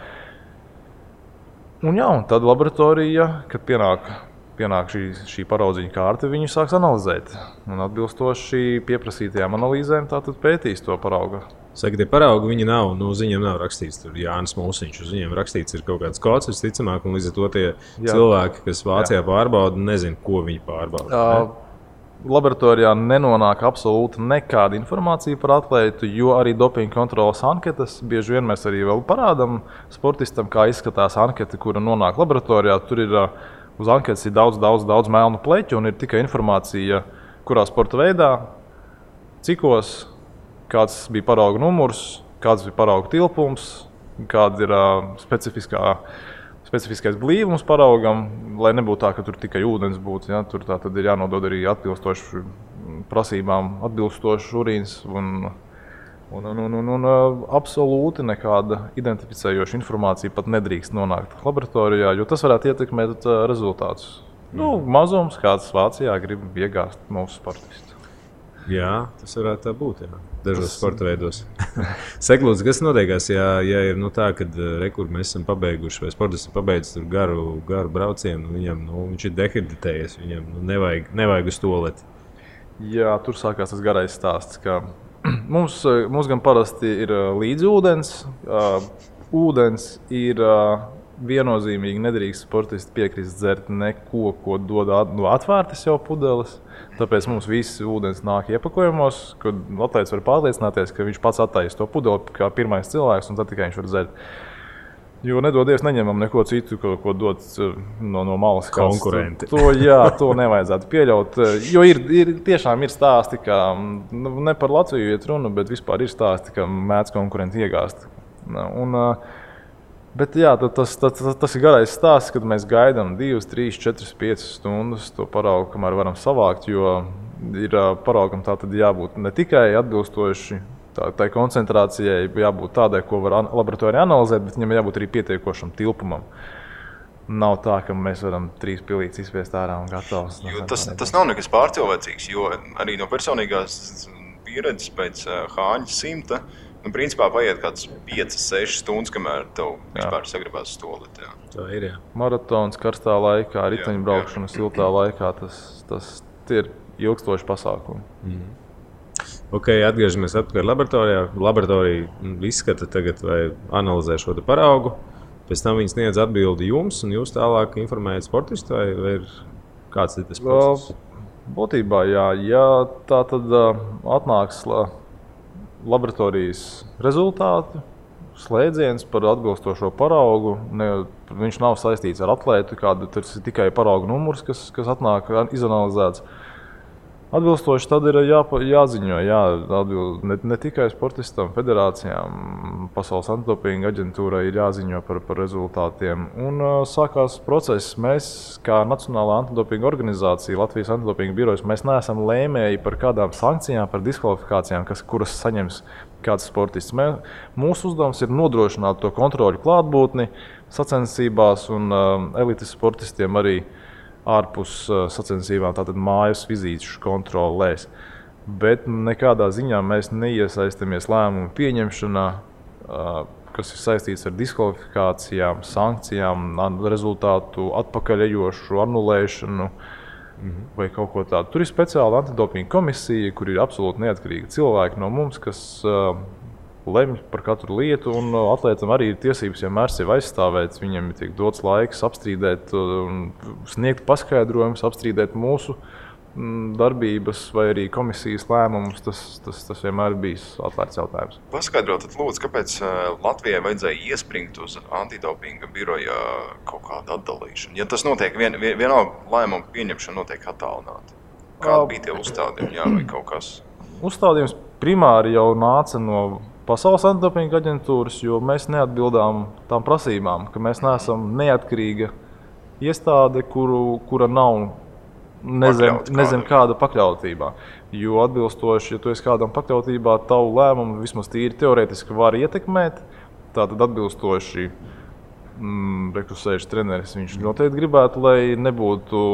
Un tad laboratorija, kad pienāk šī paraudziņa kārta, viņu sāks analizēt. Un atbilstoši pieprasītajām analīzēm tātad pētīs to paraugu. Saka, tie paraugi viņi nav, viņiem nav rakstīts tur Jānis Mūsiņš, uz viņiem rakstīts ir kaut kāds kods, visticamāk, un līdz ar to tie cilvēki, kas Vācijā pārbauda, nezin, ko viņi pārbauda. Laboratorijā nenonāk absolūti nekāda informācija par atlētu, jo arī dopinga kontrolas anketas bieži vien mēs arī vēl parādām sportistam, kā izskatās anketa, kura nonāk laboratorijā. Tur ir uz anketas ir daudz melnu pleķu un ir tikai informācija, kurā sporta veidā, cikos, kāds bija parauga numurs, kāds bija parauga tilpums, kāda ir specifiskais blīvums paraugam, lai nebūtu tā, ka tur tikai ūdens būtu. Ja? Tur tad ir jānodod arī atbilstoši prasībām, atbilstošs urīns un absolūti nekāda identificējoša informācija pat nedrīkst nonākt laboratorijā, jo tas varētu ietekmēt rezultātus. Mazums, kāds Vācijā grib iegāzt mūsu sportistu. Jā, tas varētu tā būt. Jā. Dažos sporta veidos. Seklūdz, kas notiekās, ja ir tā, kad mēs esam pabeiguši, vai sportists ir pabeidzis garu braucienu, viņam viņš ir dehidratējies, viņam nevajag uz tualeti. Jā, tur sākās tas garais stāsts, ka mums gan parasti ir līdzi ūdens. Ūdens ir viennozīmīgi nedrīkst sportisti piekrist dzert neko, ko dod no atvērtas jau pudeles. Tāpēc mums viss ūdens nāk iepakojumos, kad atlētājs var pārliecināties, ka viņš pats attaisa to pudeli kā pirmais cilvēks, un tad tikai viņš var dzert. Jo nedodies neņemam neko citu, ko dod no malas. Konkurenti. To nevajadzētu pieļaut. Jo tiešām ir stāsti, ka ne par Latviju iet runa, bet vispār ir stāsti, ka mēdz konkurenti iegāst. Bet jā, tas ir garais stāsts, kad mēs gaidām 2, 3, 4, 5 stundas to paraugu, kamēr varam savākt, jo ir paraugam tā tad jābūt ne tikai atbilstoši tai koncentrācijai, jābūt tādai, ko var laboratorijā analizēt, bet viņam jābūt arī pietiekošam tilpumam. Nav tā, ka mēs varam 3 pilītes izspiest ārā un gatavs. Tas nav nekas pārcilvēcīgs, jo arī no personīgās pieredzes pēc Hāņa 100, principā paiet kāds 5-6 stundas, kamēr tev vispār sagribās stolīt. Tā ir, jā. Maratons karstā laikā, riteņbraukšana siltā laikā, tas ir ilgstoši pasākumi. Ok, atgriežamies atpakaļ laboratorijā. Laboratorija izskata tagad vai analizē šo paraugu. Pēc tam viņi sniedz atbildi jums, un jūs tālāk informējat sportistu, vai ir kāds ir tas process? Būtībā, jā. Ja tā tad atnāks laboratorijas rezultāti, slēdziens par atbilstošo paraugu, viņš nav saistīts ar atlētu, tas ir tikai paraugu numurs, kas atnāk izanalizēts. Atbilstoši tad ir jāziņo, ne tikai sportistam, federācijām, Pasaules antidopinga aģentūrai ir jāziņo par rezultātiem. Un sākās process. Mēs, kā Nacionālā antidopinga organizācija, Latvijas antidopinga birojas, mēs neesam lēmēji par kādām sankcijām, par diskvalifikācijām, kuras saņems kāds sportists. Mūsu uzdevums ir nodrošināt to kontroļu klātbūtni sacensībās un elites sportistiem arī ārpus sacensībām, tātad mājas vizīšu kontrolēs. Bet nekādā ziņā mēs neiesaistamies lēmumu pieņemšanā, kas ir saistīts ar diskvalifikācijām, sankcijām, rezultātu atpakaļejošu anulēšanu vai kaut ko tādu. Tur ir speciāla antidopinga komisija, kur ir absolūti neatkarīgi cilvēki no mums, kas lemj par katru lietu, un atlētam arī ir tiesības vienmēr sevi aizstāvēt. Viņam tiek dots laiks apstrīdēt, sniegt paskaidrojumus, apstrīdēt mūsu darbības vai arī komisijas lēmumus. Tas vienmēr bijis atvērts jautājums. Paskaidrot, lūdzu, kāpēc Latvijai vajadzēja iespringt uz antidopinga biroja kaut kādu atdalīšanu? Ja tas notiek, vienalga lēmumu pieņemšana notiek attālināti. Kādi bija tie uzstādījumi, vai kaut kas? Uzstādījums primāri jau nāca no Pasaules antidopinga aģentūras, jo mēs neatbildām tām prasībām, ka mēs neesam neatkarīga iestāde, kura nav nezem kāda pakļautībā. Jo atbilstoši, ja tu esi kādam pakļautībā, tavu lēmumu vismaz tīri teorētiski var ietekmēt. Tātad atbilstoši rekusējuši treneris, viņš noteikti gribētu, lai nebūtu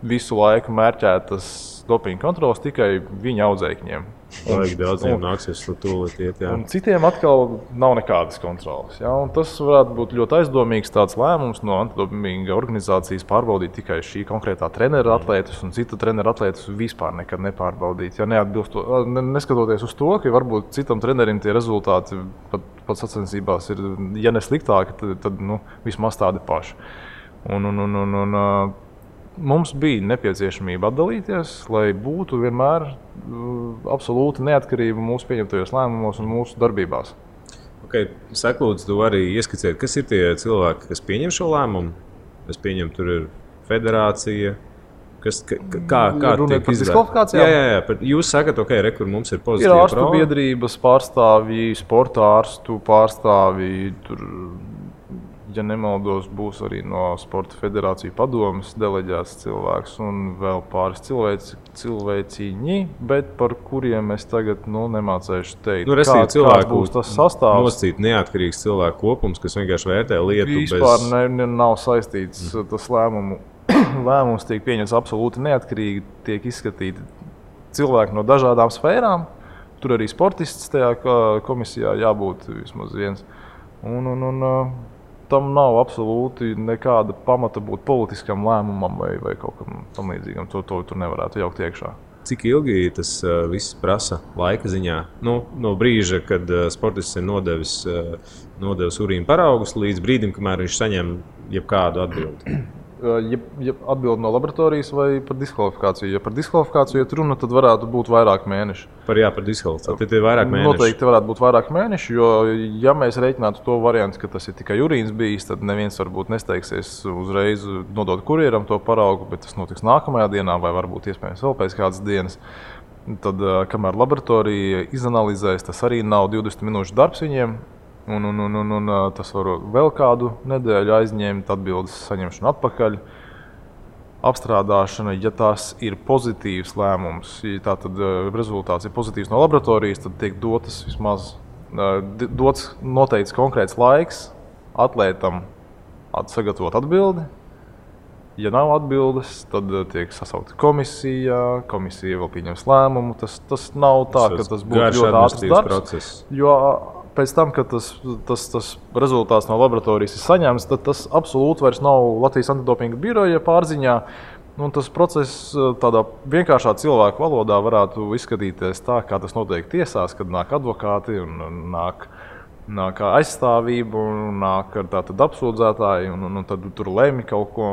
visu laiku mērķētas dopinga kontrolas tikai viņa audzēkņiem. Vajag daudziem nāksies tūlīt iet, jā. Un citiem atkal nav nekādas kontrolas. Ja? Un tas varētu būt ļoti aizdomīgs tāds lēmums no antidopinga organizācijas pārbaudīt tikai šī konkrētā trenera atlētus un cita trenera atlētus vispār nekad nepārbaudīt. Ja neskatoties uz to, ka varbūt citam trenerim tie rezultāti pat sacensībās ir, ja ne sliktāki, tad vismaz tādi paši. Mums bija nepieciešamība atdalīties, lai būtu vienmēr absolūti neatkarība mūsu pieņemtajos lēmumos un mūsu darbībās. Okay. Saka, lūdzu, tu arī ieskicēt, kas ir tie cilvēki, kas pieņem šo lēmumu? Es pieņemu, tur ir federācija. Kā runāt par diskvalifikācijām? Jā. Jūs sakat, kur mums ir pozitīva prova. Ir ārstu biedrības pārstāvji, sporta ārstu pārstāvji, tur, ja nemaldos, būs arī no Sporta federāciju padomes deleģēts cilvēks un vēl pāris cilvēciņi, bet par kuriem es tagad nemācēšu teikt. Kāds būs tas sastāvs. Noscīt neatkarīgs cilvēku kopums, kas vienkārši vērtē lietu vispār nav saistīts tas lēmums tiek pieņemts absolūti neatkarīgi, tiek izskatīti cilvēki no dažādām sfērām. Tur arī sportists tajā komisijā jābūt vismaz viens. Tam nav absolūti nekāda pamata būt politiskam lēmumam vai kaut kam tam līdzīgam. To tur nevarētu jaukt iekšā. Cik ilgi tas viss prasa laika ziņā? Nu, no brīža, kad sportists ir nodevis urīna paraugus, līdz brīdim, kamēr viņš saņem jebkādu atbildi. Ja atbild no laboratorijas vai par diskvalifikāciju? Ja par diskvalifikāciju iet runa, tad varētu būt vairāk mēneši. Par diskvalifikāciju. Tad ir vairāk mēneši. Noteikti varētu būt vairāk mēneši, jo ja mēs reiķinātu to variantu, ka tas ir tikai urīns bijis, tad neviens varbūt nesteigsies uzreiz nodot kurjeram to paraugu, bet tas notiks nākamajā dienā vai varbūt iespējams vēl pēc kādas dienas. Tad, kamēr laboratorija izanalizēs, tas arī nav 20 minūšu darbs viņiem. Un tas var vēl kādu nedēļu aizņemt, atbildes saņemšanu atpakaļ. Apstrādāšana, ja tas ir pozitīvs lēmums, ja tātad rezultāts ir pozitīvs no laboratorijas, tad tiek dots noteikts konkrēts laiks atlētam sagatavot atbildi. Ja nav atbildes, tad tiek sasaukta komisija, komisija vēl pieņems lēmumu. Tas nav tā, ka tas būtu ļoti ātrs darbs. Jo pēc tam, kad tas rezultāts no laboratorijas ir saņemts, tad tas absolūti vairs nav Latvijas antidopinga biroja pārziņā. Tas process tādā vienkāršā cilvēku valodā varētu izskatīties tā, kā tas notiek tiesās, kad nāk advokāti un nāk aizstāvība un nāk tātad apsūdzētāji un tad tur lemj kaut ko.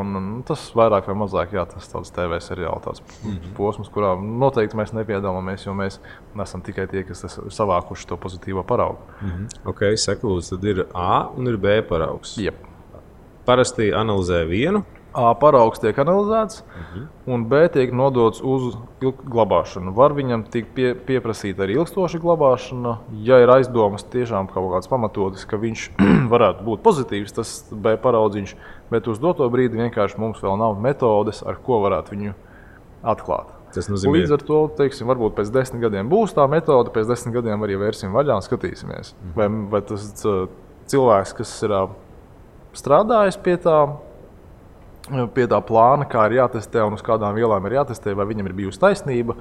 Tas vairāk vai mazāk, tas tāds TV seriāli, tāds posms, kurā noteikti mēs nepiedalāmies, jo mēs nesam tikai tie, kas ir savākuši to pozitīvo paraugu. Ok, saka lūdzu, tad ir A un ir B paraugs. Jep. Parasti analizē vienu. A paraugs tiek analizēts, un B tiek nodots uz glabāšanu. Var viņam tikt pieprasīta arī ilgstoša glabāšana, ja ir aizdomas tiešām kaut kāds pamatotis, ka viņš varētu būt pozitīvs, tas B paraudziņš, bet uz doto brīdi vienkārši mums vēl nav metodes, ar ko varētu viņu atklāt. Tas nozīmē, līdz ar to, teiksim, varbūt pēc 10 gadiem būs tā metode, pēc 10 gadiem arī vērsim vaļā un skatīsimies. Vai tas cilvēks, kas ir strādājis pie tā plāna, kā ir jātestē un uz kādām vielām ir jātestē, vai viņam ir bijusi taisnība,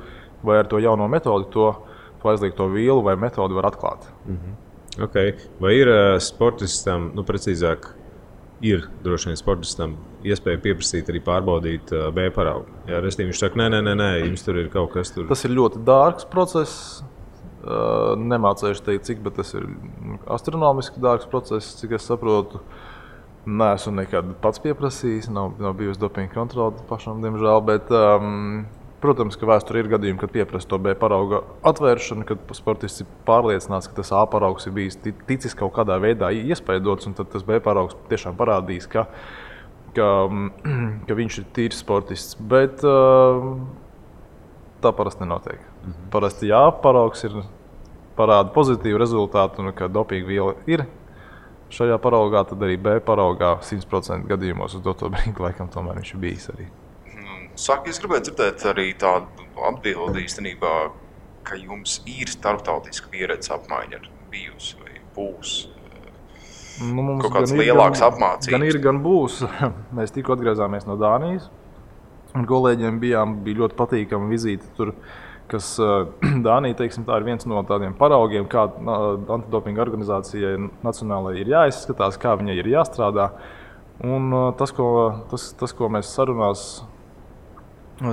vai ar to jauno metodi to aizliegto vielu vai metodi var atklāt. Okay. Vai ir sportistam, precīzāk, ir droši vien sportistam iespēja pieprasīt arī pārbaudīt B paraugu? Jā, restīvi viņš saka, nē, jums tur ir kaut kas tur. Tas ir ļoti dārgs process. Nemācējuši teikt, cik, bet tas ir astronomiski dārgs process, cik es saprotu. Neesmu nekad pats pieprasījis, nav bijusi dopinga kontrole pašam, diemžēl, bet, protams, ka vēsturē ir gadījumi, kad pieprasa to B parauga atvēršanu, kad sportists ir pārliecināts, ka tas A paraugs ir bijis ticis kaut kādā veidā iespaidots, un tad tas B paraugs tiešām parādīs, ka viņš ir tīrs sportists, bet tā parasti nenotiek. Parasti A paraugs parāda pozitīvu rezultātu, un ka dopinga viela ir šajā paraugā, tad arī B paraugā 100% gadījumos uz doto brīdi laikam tomēr viņš ir bijis arī. Saka, es gribētu dzirdēt arī tādu atbildi īstenībā, ka jums ir starptautiska pieredze apmaiņa bijusi vai būs. Kaut kāds lielāks apmācības. Gan ir, gan būs. Mēs tikko atgriezāmies no Dānijas. Un kolēģiem bija ļoti patīkama vizīte tur, kas Dānija, teiksim, tā ir viens no tādiem paraugiem, kā antidopinga organizācijai nacionālai ir jāizskatās, kā viņai ir jāstrādā. Un tas, ko mēs sarunās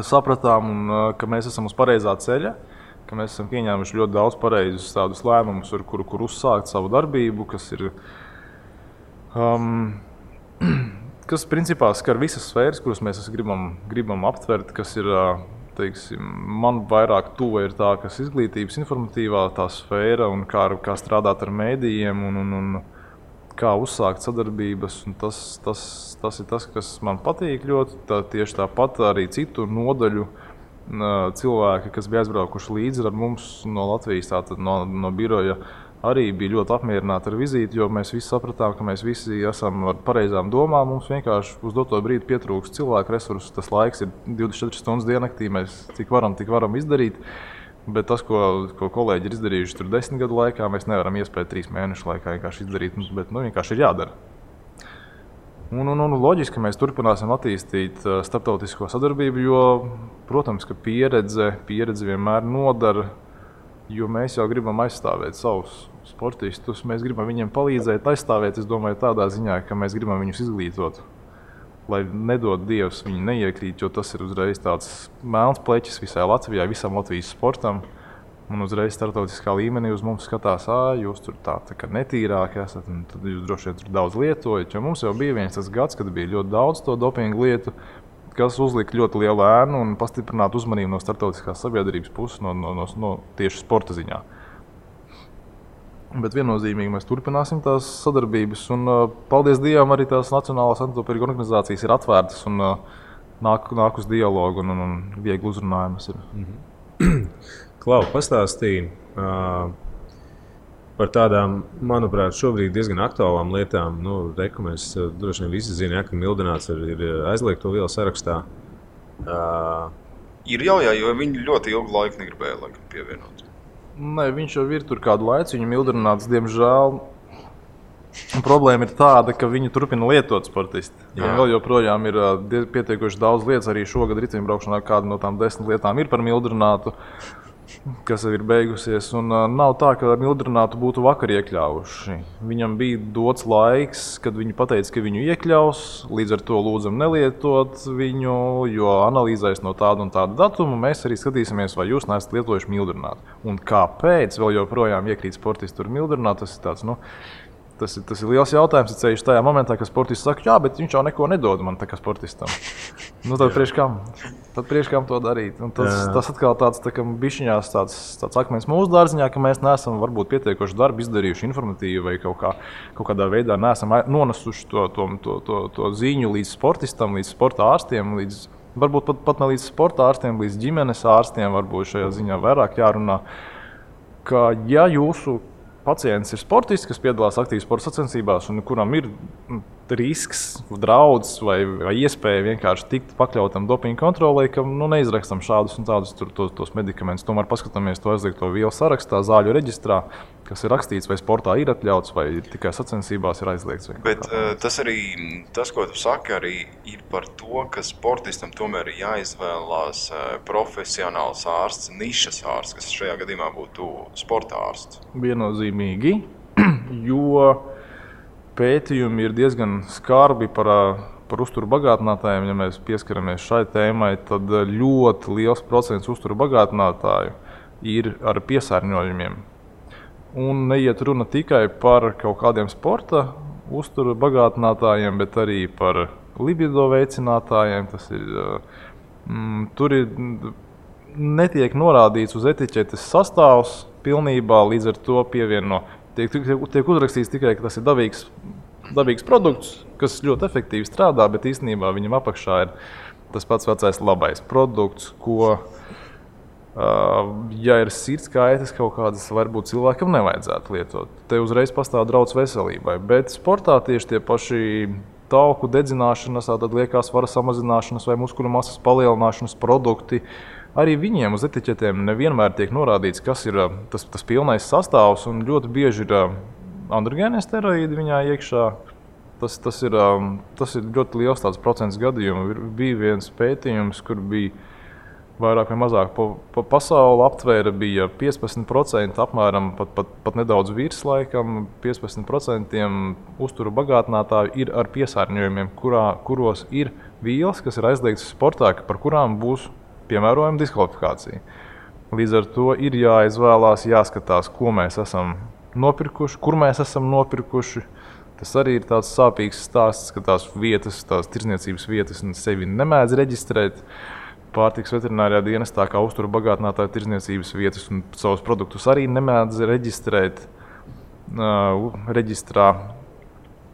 sapratām, un ka mēs esam uz pareizā ceļa, ka mēs esam pieņēmuši ļoti daudz pareizus tādus lēmumus, ar kur uzsākt savu darbību, kas principā skar visas sfēras, kuras mēs gribam aptvert, kas ir, teiksim, man vairāk tuva ir tā, kas izglītības informatīvā tā sfēra un kā strādāt ar mēdījiem un kā uzsākt sadarbības. Un tas ir tas, kas man patīk ļoti. Tieši tāpat arī citu nodaļu cilvēki, kas bija aizbraukuši līdzi ar mums no Latvijas, tātad no biroja, arī bija ļoti apmierināti ar vizīti, jo mēs visi sapratām, ka mēs visi esam ar pareizām domām. Mums vienkārši uz doto brīdi pietrūkst cilvēku resursus. Tas laiks ir 24 stundas diennaktī, mēs cik varam izdarīt. Bet tas, ko kolēģi ir izdarījuši tur 10 gadu laikā, mēs nevaram iespēt 3 mēnešu laikā vienkārši izdarīt, bet vienkārši ir jādara. Un loģiski, ka mēs turpināsim attīstīt starptautisko sadarbību, jo, protams, ka pieredze vienmēr nodara, jo mēs jau gribam aizstāvēt savus sportistus, mēs gribam viņiem palīdzēt, aizstāvēt, es domāju, tādā ziņā, ka mēs gribam viņus izglītot. lai nedod Dievs viņi neiekrīt, jo tas ir uzreiz tāds melns pleķis visai Latvijai, visam Latvijas sportam. Un uzreiz starptautiskā līmenī uz mums skatās, jūs tur tā kā netīrāki esat, un tad jūs droši vien tur daudz lietojat. Jo mums jau bija viens tas gads, kad bija ļoti daudz to dopingu lietu, kas uzlika ļoti lielu ēnu un pastiprinātu uzmanību no starptautiskās sabiedrības puses, no tieši sporta ziņā. Bet viennozīmīgi mēs turpināsim tās sadarbības, un paldies Dievam arī tās Nacionālās antidopinga organizācijas ir atvērtas un nāk uz dialogu un viegli uzrunājumas ir. Klau, pastāstīja par tādām, manuprāt, šobrīd diezgan aktuālām lietām. Mēs droši vien visi zinām, ka Mildināts ir aizliegto vielu sarakstā. Ir jau, jo viņi ļoti ilgu laiku negribēja pievienot. Nē, viņš jau ir tur kādu laiku, viņa Mildināts, diemžēl. Problēma ir tāda, ka viņi turpina lietot sportisti. Vēl joprojām ir pietiekoši daudz lietas, arī šogad riteņbraukšanā kāda no tām 10 lietām ir par Mildinātu, kas ir beigusies. Un nav tā, ka Mildinātu būtu vakar iekļāvuši. Viņam bija dots laiks, kad viņi pateica, ka viņu iekļaus, līdz ar to lūdzam nelietot viņu, jo analīzēs no tāda un tāda datuma mēs arī skatīsimies, vai jūs neesat lietojuši Mildinātu. Un kāpēc vēl joprojām iekrīt sportisti tur Mildinātu, tas ir tāds, Tas ir liels jautājums, ceļš tajā momentā, kad sportists saka, jā, bet viņš jau neko nedod man tā kā sportistam. Tad priekš kam? Tad priekš kam to darīt? Un tas atkal tāds tā kā bišķiņās tāds akmens mūsu dārziņā, ka mēs neesam varbūt pietiekoši darbu izdarījuši informatīvi vai kaut kādā veidā neesam nonesuši to ziņu līdz sportistam, līdz sporta ārstiem, varbūt pat ne līdz sporta ārstiem, līdz ģimenes ārstiem varbūt šajā ziņā vairāk jārunā, ka ja jūsu pacients ir sportists, kas piedalās aktīvi sporta sacensībās un kuram ir risks, draudz vai iespēja vienkārši tikt pakļautam dopinga kontrolei, ka neizrakstam šādus un tādus tos medikamentus. Tomēr paskatāmies to aizliegto vielu sarakstā, zāļu reģistrā, kas ir rakstīts, vai sportā ir atļauts, vai tikai sacensībās ir aizliegts. Bet tas arī, ko tu saki, arī ir par to, ka sportistam tomēr ir jāizvēlās profesionāls ārsts, nišas ārsts, kas šajā gadījumā būtu sporta ārsts. Viennozīmīgi, jo pētījumi ir diezgan skarbi par uzturu bagātinātājiem. Ja mēs pieskaramies šai tēmai, tad ļoti liels procents uzturu bagātinātāju ir ar piesārņojumiem. Un neiet runa tikai par kaut kādiem sporta uzturu bagātinātājiem, bet arī par libido veicinātājiem. Tur netiek norādīts uz etiķetes sastāvs pilnībā, līdz ar to pievieno. Tiek uzrakstīts tikai, ka tas ir dabīgs produkts, kas ļoti efektīvi strādā, bet īstenībā viņam apakšā ir tas pats vecais labais produkts, ko, ja ir sirds kaitas kaut kādas, varbūt cilvēkam nevajadzētu lietot. Te uzreiz pastāv draudz veselībai, bet sportā tieši tie paši tauku dedzināšanas, tātad liekās svara samazināšanas vai muskuļu masas palielināšanas produkti, arī viņiem uz etiķetēm nevienmēr tiek norādīts, kas ir tas pilnais sastāvs, un ļoti bieži ir androgēnie steroīdi viņā iekšā. Tas ir ļoti liels tāds procents gadījumu. Bija viens pētījums, kur bija vairāk vai mazāk pa pasauli aptvēra, bija 15%, apmēram pat nedaudz virs laikam, 15% uzturu bagātinātāju ir ar piesārņojumiem, kuros ir vielas, kas ir aizliegtas sportā, par kurām būs piemērojama diskvalifikācija. Līdz ar to ir jāizvēlās, jāskatās, ko mēs esam nopirkuši, kur mēs esam nopirkuši. Tas arī ir tāds sāpīgs stāsts, ka tās tirdzniecības vietas sevi nemēdz reģistrēt. Pārtikas veterinārijā dienestā kā uzturu bagātinātāju tirdzniecības vietas un savus produktus arī nemēdz reģistrēt reģistrā.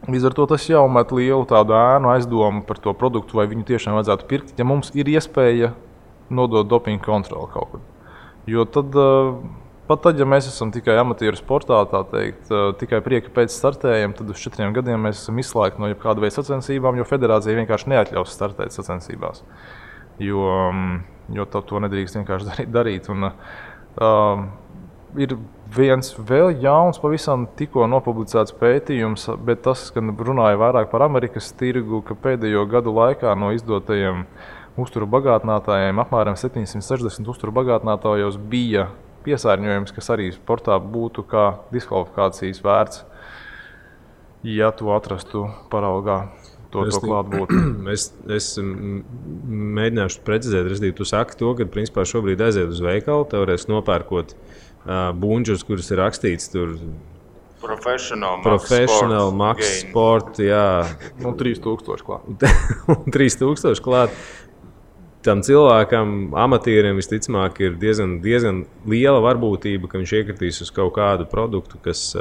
Līdz ar to tas jau met lielu tādu ēnu aizdomu par to produktu, vai viņu tiešām vajadzētu pirkt, ja mums ir iespēja nodot dopinga kontroli kaut kur. Jo pat tad, ja mēs esam tikai amatieru sportā, tā teikt, tikai prieka pēc startējiem, tad uz 4 gadiem mēs esam izslēgti no jebkāda veida sacensībām, jo federācija vienkārši neatļaus startēt sacensībās. Jo to nedrīkst vienkārši darīt. Un, ir viens vēl jauns, pavisam tikko nopublicēts pētījums, bet tas, ka runāja vairāk par Amerikas tirgu, ka pēdējo gadu laikā no izdotajiem uzturu bagātinātājiem apmēram 760 uzturu bagātinātājos bija piesārņojums, kas arī sportā būtu kā diskvalifikācijas vērts, ja to atrastu paraugā. to klātbūt. Es mēģināšu precizēt, respektīvi, tu saki to, ka principā šobrīd aiziet uz veikalu, teorētiski nopērkot bunģus, kuras ir rakstīts tur Professional, Max Sport, jā. 3000 klāt. 3000 klāt. Tam cilvēkam, amatierim, visticamāk, ir diezgan liela varbūtība, ka viņš iekritīs uz kaut kādu produktu, kas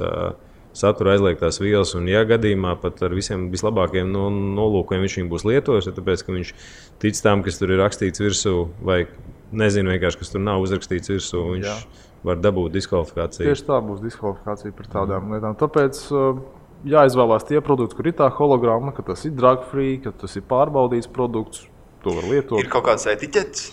satura aizliegtās vielas. Un, ja gadījumā pat ar visiem vislabākajiem nolūkiem viņš viņu būs lietojis, tāpēc, ka viņš tic tam, kas tur ir rakstīts virsū, vai nezinu vienkārši, kas tur nav uzrakstīts virsū, viņš var dabūt diskvalifikāciju. Tieši tā būs diskvalifikācija par tādām lietām. Tāpēc jāizvēlās tie produkti, kur ir tā hologramma, ka tas ir drug free, ka tas ir pārbaudīts produkts. To var lietot. Ir kaut kāds etiķets?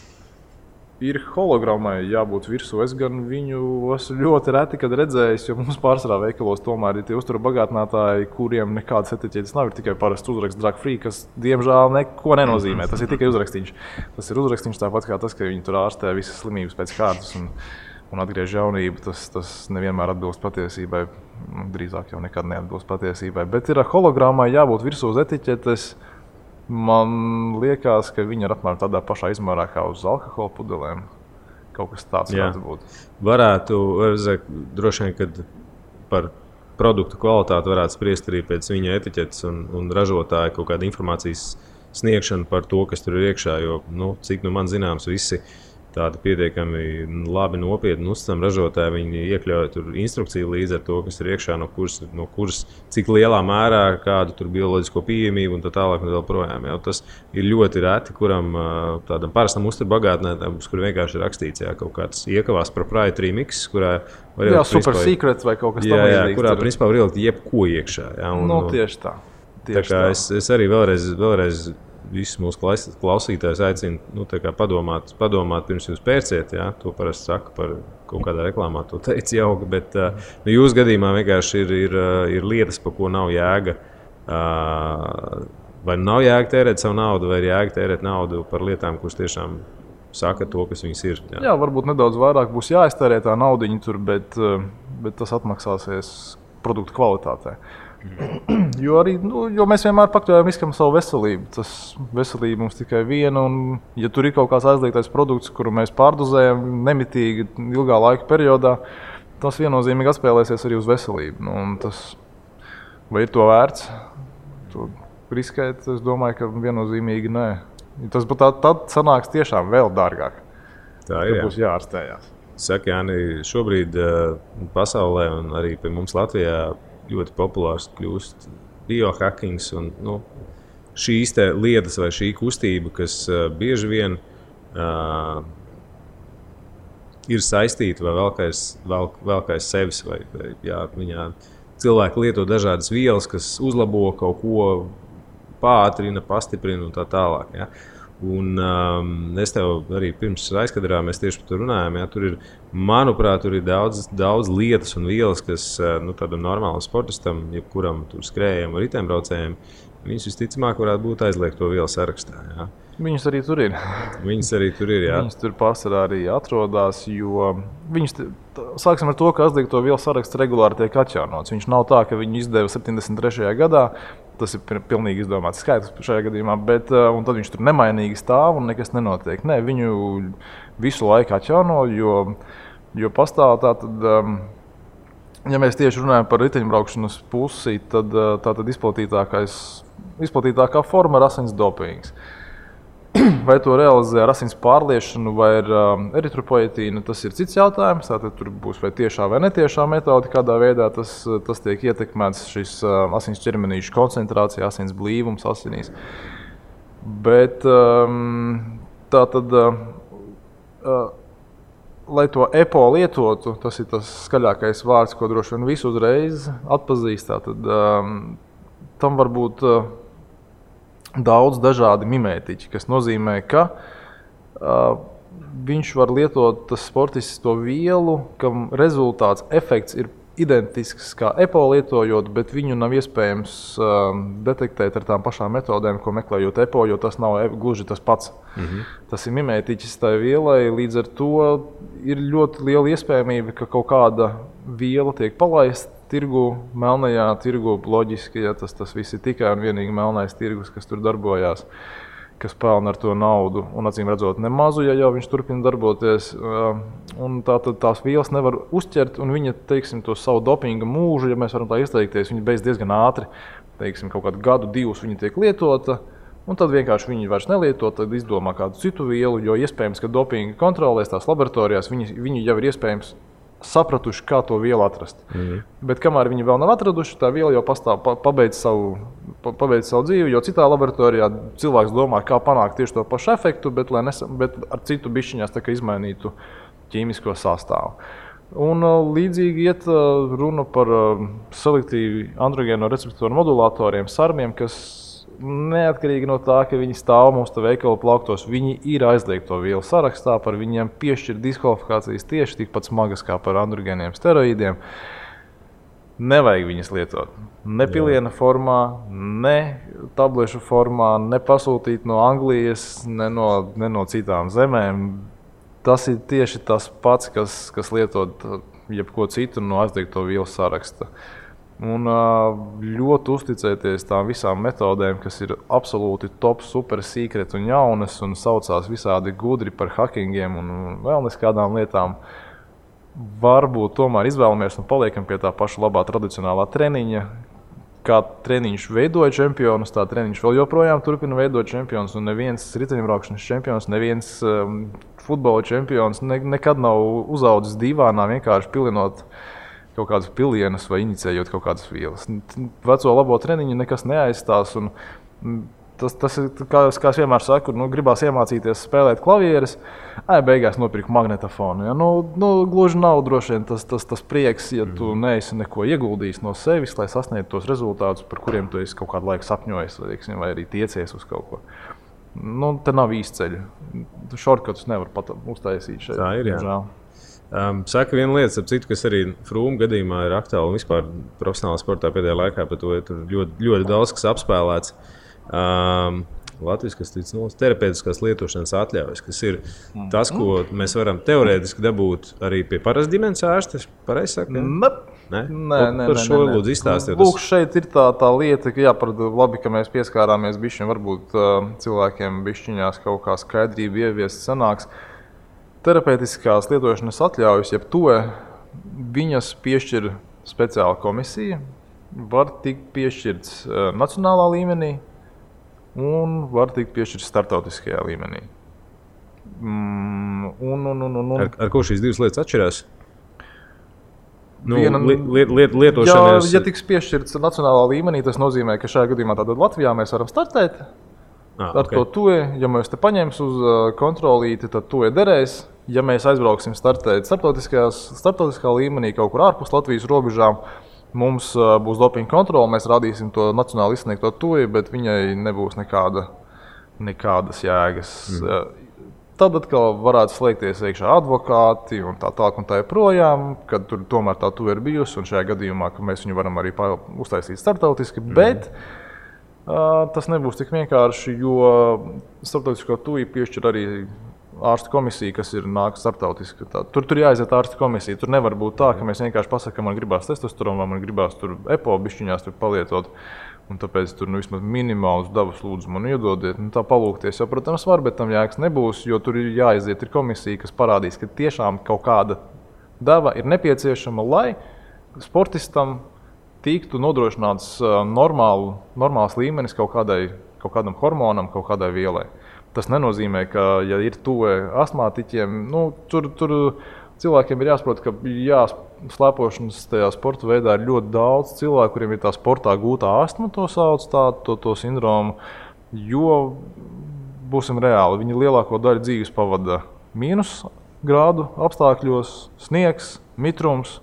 Ir hologrammai jābūt virsū. Es gan viņu esmu ļoti reti, kad redzējis, jo mums pārsvarā veikalos tomēr ir tie uzturu bagātinātāji, kuriem nekādas etiķetes nav. Ir tikai parasts uzraksts drug free, kas diemžēl neko nenozīmē. Tas ir tikai uzrakstīns. Tas ir uzrakstīns tāpat kā tas, ka viņi tur ārstē visas slimības pēc kārtas un atgriež jaunību. Tas nevienmēr atbilst patiesībai. Drīzāk jau nekad neatbilst patiesībai. Bet ir hologrammai jābūt virsū uz etiķetes. Man liekas, ka viņi ir apmēram tādā pašā izmērā kā uz alkohola pudelēm. Kaut kas tāds varētu būt. Varētu, droši vien, kad par produktu kvalitāti varētu spriest arī pēc viņa etiķetes un ražotāja kaut kāda informācijas sniegšana par to, kas tur ir iekšā. Jo, cik man zināms, visi tādi pietiekami labi nopietni uzticami ražotāji, viņi iekļauj tur instrukciju līdz ar to, kas ir iekšā, no kuras cik lielā mērā, kādu tur bioloģisko pieejamību un tā tālāk un vēl projām. Tas ir ļoti reti, kuram tādam parastam uzturbagātnētājam, kur vienkārši ir rakstīts kaut kāds iekavās proprietary mix, kurā var ielikt super secrets vai kaut kas tamlīdzīgs. Kurā principā var ielikt jebko iekšā. Tieši tā. Tā kā es arī vēlreiz visus mūsu klausītājus aicinu padomāt pirms jūs pērciet. Jā? To parasti saka par kaut kādā reklāmā, to teica jauki. Bet jūsu gadījumā vienkārši ir lietas, par ko nav jēga. Vai nav jēga tērēt savu naudu, vai ir jēga tērēt naudu par lietām, kuras tiešām saka to, kas viņas ir. Jā, varbūt nedaudz vairāk būs jāiztērē tā naudiņa tur, bet tas atmaksāsies produktu kvalitātē. Jo mēs vienmēr pakļaujam riskam savu veselību. Tas veselība mums tikai viena, un ja tur ir kaut kāds aizliegtais produkts, kuru mēs pārdozējam nemitīgi ilgā laika periodā, tas viennozīmīgi atspēlēsies arī uz veselību. Vai ir to vērts? To riskēt, es domāju, ka viennozīmīgi nē. Tas tad sanāks tiešām vēl dārgāk. Tā ir, būs jāārstējās. Saka, Jāni, šobrīd pasaulē un arī pie mums Latvijā ļoti populārs kļūst biohackings un šīs lietas vai šī kustība, kas bieži vien ir saistīta vai vēl kā sevis. Viņā cilvēki lieto dažādas vielas, kas uzlabo kaut ko, pātrina, pastiprina un tā tālāk. Ja? Un es tev arī pirms aizkadrā mēs tieši par to runājām. Ja? Tur ir, manuprāt, tur ir daudz lietas un vielas, kas tādam normālam sportistam, jebkuram tur skrējējam vai riteņbraucējiem, viņas visticamāk varētu būt aizliegto vielu sarakstā. Ja? Viņas arī tur ir. Jā. Viņas tur pārsvarā arī atrodas, jo sāksim ar to, ka aizliegto vielu saraksts regulāri tiek atjaunots. Viņš nav tā, ka viņu izdeva 73. gadā. Tas ir pilnīgi izdomāts skaitlis šajā gadījumā, un tad viņš tur nemainīgi stāv un nekas nenotiek. Nē, viņu visu laiku atjauno, jo pastāv tātad, ja mēs tieši runājam par riteņbraukšanas pusi, tad tātad izplatītākā forma ir asins dopings. Vai to realizē ar asins pārliešanu vai ar eritropoietīnu, tas ir cits jautājums. Tātad tur būs vai tiešā vai netiešā metode, kādā veidā tas tiek ietekmēts šis asins ķermenīšu koncentrācija, asins blīvums asinīs. Bet tātad, lai to EPO lietotu, tas ir tas skaļākais vārds, ko droši vien visi uzreiz atpazīst. Tātad tam var būt daudz dažādi mimētiķi, kas nozīmē, ka viņš var lietot tas sportists to vielu, kam rezultāts, efekts ir identisks kā EPO lietojot, bet viņu nav iespējams detektēt ar tām pašām metodēm, ko meklējot EPO, jo tas nav gluži tas pats. Tas ir mimētiķis tai vielai, līdz ar to ir ļoti liela iespējamība, ka kaut kāda viela tiek palaista tirgu, melnajā tirgu, loģiski, ja tas viss ir tikai un vienīgi melnais tirgus, kas tur darbojās, kas pelna ar to naudu, un acīm redzot nemazu, ja jau viņš turpina darboties. Un tātad tās vielas nevar uzķert, un viņa, teiksim, to savu dopinga mūžu, ja mēs varam tā izteikties, viņa beidz diezgan ātri, teiksim, kaut kādu gadu, divus viņa tiek lietota, un tad vienkārši viņi vairs nelieto, tad izdomā kādu citu vielu, jo iespējams, ka dopinga kontrolēs tās laboratorijās, viņi jau ir iespējams sapratuši, kā to vielu atrast. Bet kamēr viņi vēl nav atraduši, tā viela jau pastāv, pabeidz savu dzīvi, jo citā laboratorijā cilvēks domā, kā panākt tieši to pašu efektu, bet ar citu bišķiņās tā kā izmainītu ķīmisko sastāvu. Un līdzīgi iet runa par selektīvi androgēno receptoru modulatoriem, sarmiem, kas neatkarīgi no tā, ka viņi stāv mums te veikalu plauktos, viņi ir aizliegto vielu sarakstā, par viņiem piešķir diskvalifikācijas tieši tikpat smagas kā par androgēniem steroīdiem. Nevajag viņas lietot. Ne piliena formā, ne tablešu formā, ne pasūtīt no Anglijas, ne no citām zemēm. Tas ir tieši tas pats, kas lietot jebko citu no aizliegto vielu saraksta. Un ļoti uzticēties tām visām metodēm, kas ir absolūti top, super secret un jaunas un saucās visādi gudri par hackingiem un vēl neskādām lietām. Varbūt tomēr izvēlamies un paliekam pie tā paša labā tradicionālā treniņa. Kā treniņš veidoja čempionus, tā treniņš vēl joprojām turpina veidot čempionus. Un neviens riteņbraukšanas čempions, neviens futbola čempions nekad nav uzaudzis divānā vienkārši pilinot kaut kādas pilienas vai inicējot kaut kādas vielas. Veco labo treniņu nekas neaizstās. Un tas ir, kā es vienmēr saku, gribās iemācīties spēlēt klavieres, beigās nopirku magnetofonu. Ja? Gluži nav droši vien tas prieks, ja tu neesi neko ieguldījis no sevis, lai sasniegtu tos rezultātus, par kuriem tu esi kaut kādu laiku sapņojis, vai arī tiecies uz kaut ko. Te nav īsti ceļu. Shortcuts nevar pat uztaisīt šeit. Tā ir, jā. Saka viena lieta, citu, kas arī Frūma gadījumā ir aktuāla un vispār profesionālā sportā pēdējā laikā, par to ir ļoti daudz, kas apspēlēts. Latvijas terapeitiskās lietošanas atļaujas, kas ir tas, ko mēs varam teorētiski dabūt arī pie parasta ģimenes ārsta. Pareizi saka? Nē. Par šo lūdzu izstāstīt. Lūk, šeit ir tā lieta, ka labi, ka mēs pieskārāmies bišķiņ, varbūt cilvēkiem bišķiņās kaut kā skaidrība ieviest sanāks. Terapeitiskās lietošanas atļaujas, jeb to viņas piešķir speciāla komisija, var tikt piešķirts nacionālā līmenī un var tikt piešķirts startautiskajā līmenī. Ar ko šīs divas lietas atšķirās? Lietošanas... Ja tiks piešķirts nacionālā līmenī, tas nozīmē, ka šajā gadījumā tātad Latvijā mēs varam startēt. Ar to tue, ja mēs te paņems uz kontrolīti, tad tue derēs. Ja mēs aizbrauksim startēt starptautiskā līmenī kaut kur ārpus Latvijas robežām, mums būs dopinga kontrole, mēs rādīsim to nacionāli izsniegto tue, bet viņai nebūs nekādas jēgas. Tad atkal varētu slēgties iekšā advokāti un tā tālāk un tā joprojām, kad tur tomēr tā tue ir bijusi un šajā gadījumā, ka mēs viņu varam arī uztaisīt starptautiski, bet tas nebūs tik vienkārši, jo starptautisko tue piešķir arī ārstu komisija, kas ir nāk starptautiski. Tur jāaiziet ārstu komisija. Tur nevar būt tā, ka mēs vienkārši pasakām, man gribās testosteronu, man gribās tur EPO bišķiņās tur palietot. Un tāpēc tur vismaz minimālus devas lūdzu man iedodiet. Tā palūkties jau, protams, var, bet tam jēgas nebūs, jo tur ir jāaiziet ir komisija, kas parādīs, ka tiešām kaut kāda deva ir nepieciešama, lai sportistam tiktu nodrošināts normāls līmenis kaut kādam hormonam, kaut kādai vielai. Tas nenozīmē, ka, ja ir tuve astmātiķiem, tur cilvēkiem ir jāsaprot, ka slēpošanas tajā sporta veidā ir ļoti daudz cilvēku, kuriem ir tā sportā gūtā astma, to sauc to sindromu, jo, būsim reāli, viņi lielāko daļu dzīves pavada mīnus grādu apstākļos, sniegs, mitrums,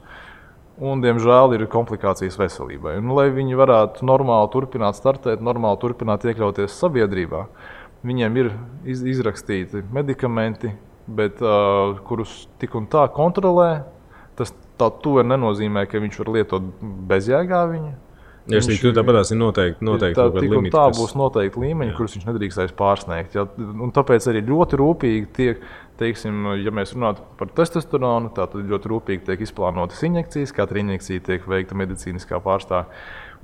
un, diemžēl, ir komplikācijas veselībai. Un, lai viņi varētu normāli turpināt startēt, normāli turpināt iekļauties sabiedrībā, viņiem ir izrakstīti medikamenti, bet kurus tik un tā kontrolē. Tā tuve nenozīmē, ka viņš var lietot bezjēgā viņu. Ja tu tāpatās ir noteikti kaut kāda limita. Tā būs noteikti līmeņi, kurus viņš nedrīkstēs pārsniegt. Ja? Un tāpēc arī ļoti rūpīgi tiek, teiksim, ja mēs runātu par testosteronu, tad ļoti rūpīgi tiek izplānotas injekcijas. Katra injekcija tiek veikta medicīniskā pārstāvja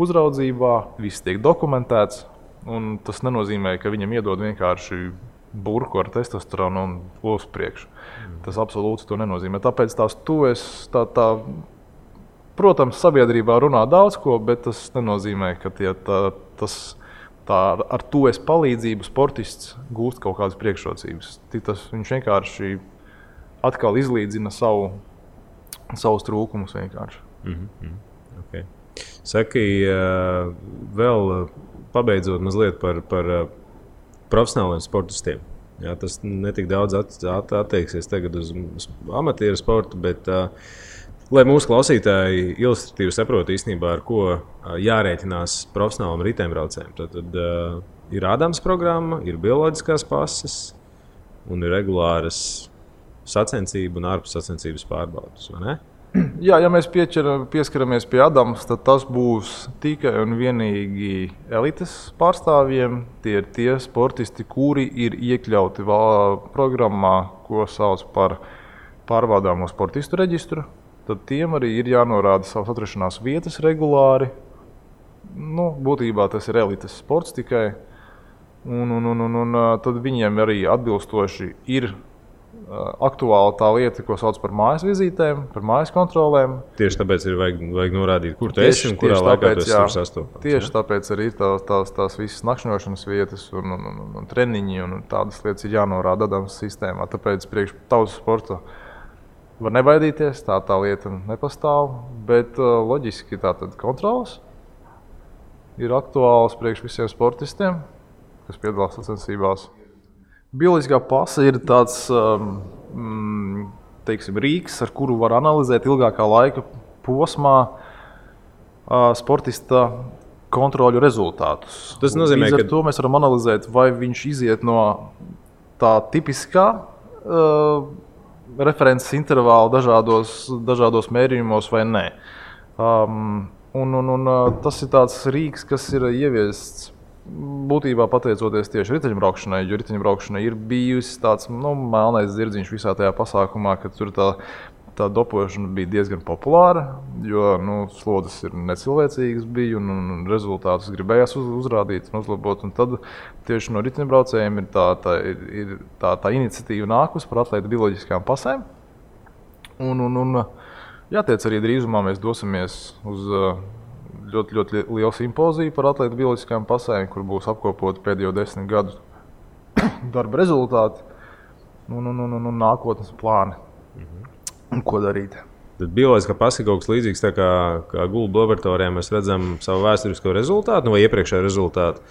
uzraudzībā, viss tiek dokumentēts. Un tas nenozīmē, ka viņam iedod vienkārši burku ar testosteronu un uz priekšu. Tas absolūti to nenozīmē. Tāpēc protams, sabiedrībā runā daudz ko, bet tas nenozīmē, ka ar to palīdzību sportists gūst kaut kādas priekšrocības. Viņš vienkārši atkal izlīdzina savus trūkumus vienkārši. Okay. Saki, vēl pabeidzot mazliet par profesionāliem sportistiem. Jā, tas netik daudz attieksies tagad uz amatieru sportu, bet lai mūsu klausītāji ilustratīvi saprotu īstenībā, ar ko jārēķinās profesionālam riteņbraucējiem. Tad ir ādams programma, ir bioloģiskās pases un ir regulāras sacensību un ārpus sacensības pārbaudes, vai ne? Jā, ja mēs pieskaramies pie ādams, tad tas būs tikai un vienīgi elites pārstāvjiem. Tie ir tie sportisti, kuri ir iekļauti programmā, ko sauc par pārbaudāmo sportistu reģistru. Tad tiem arī ir jānorāda savas atrašanās vietas regulāri. Būtībā tas ir elites sports tikai. Un tad viņiem arī atbilstoši ir aktuāla tā lieta, ko sauc par mājas vizītēm, par mājas kontrolēm. Tieši tāpēc ir vajag norādīt, kur tu esi un kurā laikā tu esi tur sastopams. Tieši tāpēc arī ir tās visas nakšņošanas vietas un treniņi un tādas lietas ir jānorāda ādams sistēmā. Tāpēc priekš tautas sporta var nebaidīties, tā lieta nepastāv, bet loģiski tātad kontrolas ir aktuāls priekš visiem sportistiem, kas piedalās sacensībās. Bioloģiskā pase ir tāds rīks, ar kuru var analizēt ilgākā laika posmā sportista kontroļu rezultātus. Tas nozīmē, ka to mēs varam analizēt, vai viņš iziet no tā tipiskā references intervāla dažādos mērījumos vai nē. Tas ir tāds rīks, kas ir ieviests būtībā pateicoties tieši riteņbraukšanai, jo riteņbraukšanai ir bijusi tāds melnais zirdziņš visā tajā pasākumā, ka tur tā dopošana bija diezgan populāra, jo slodzes ir necilvēcīgas bija un rezultātus gribējās uzrādīt un uzlabot. Un tad tieši no riteņbraucējiem ir tā iniciatīva nākus par atlētu bioloģiskām pasēm. Jātiec arī drīzumā mēs dosimies uz ļoti lielu simpoziju par atlētu bioloģiskām pasēm, kur būs apkopoti pēdējo 10 gadu darba rezultāti un nākotnes plāni. Ko darīt? Tad bioloģiskā pase ir kaut kas līdzīgs, tā kā gulbu laboratorijā mēs redzam savu vēsturisko rezultātu vai iepriekšējo rezultātu.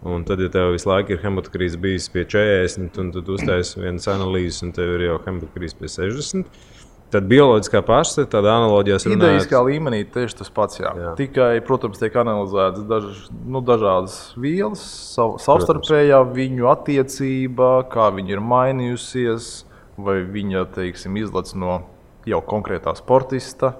Un tad, ja tev visu laiku ir hematokrīze bijis pie 40, un tad uztaisi vienas analīzes, un tev ir jau hematokrīze pie 60, tad bioloģiskā pase, tāda analoģijās runājot... Idejiskā līmenī tieši tas pats, jā. Tikai, protams, tiek analizētas dažādas vielas, savstarpējā viņu attiecība, kā viņa ir mainījusies, vai viņa, izlec no jau konkrētā sportista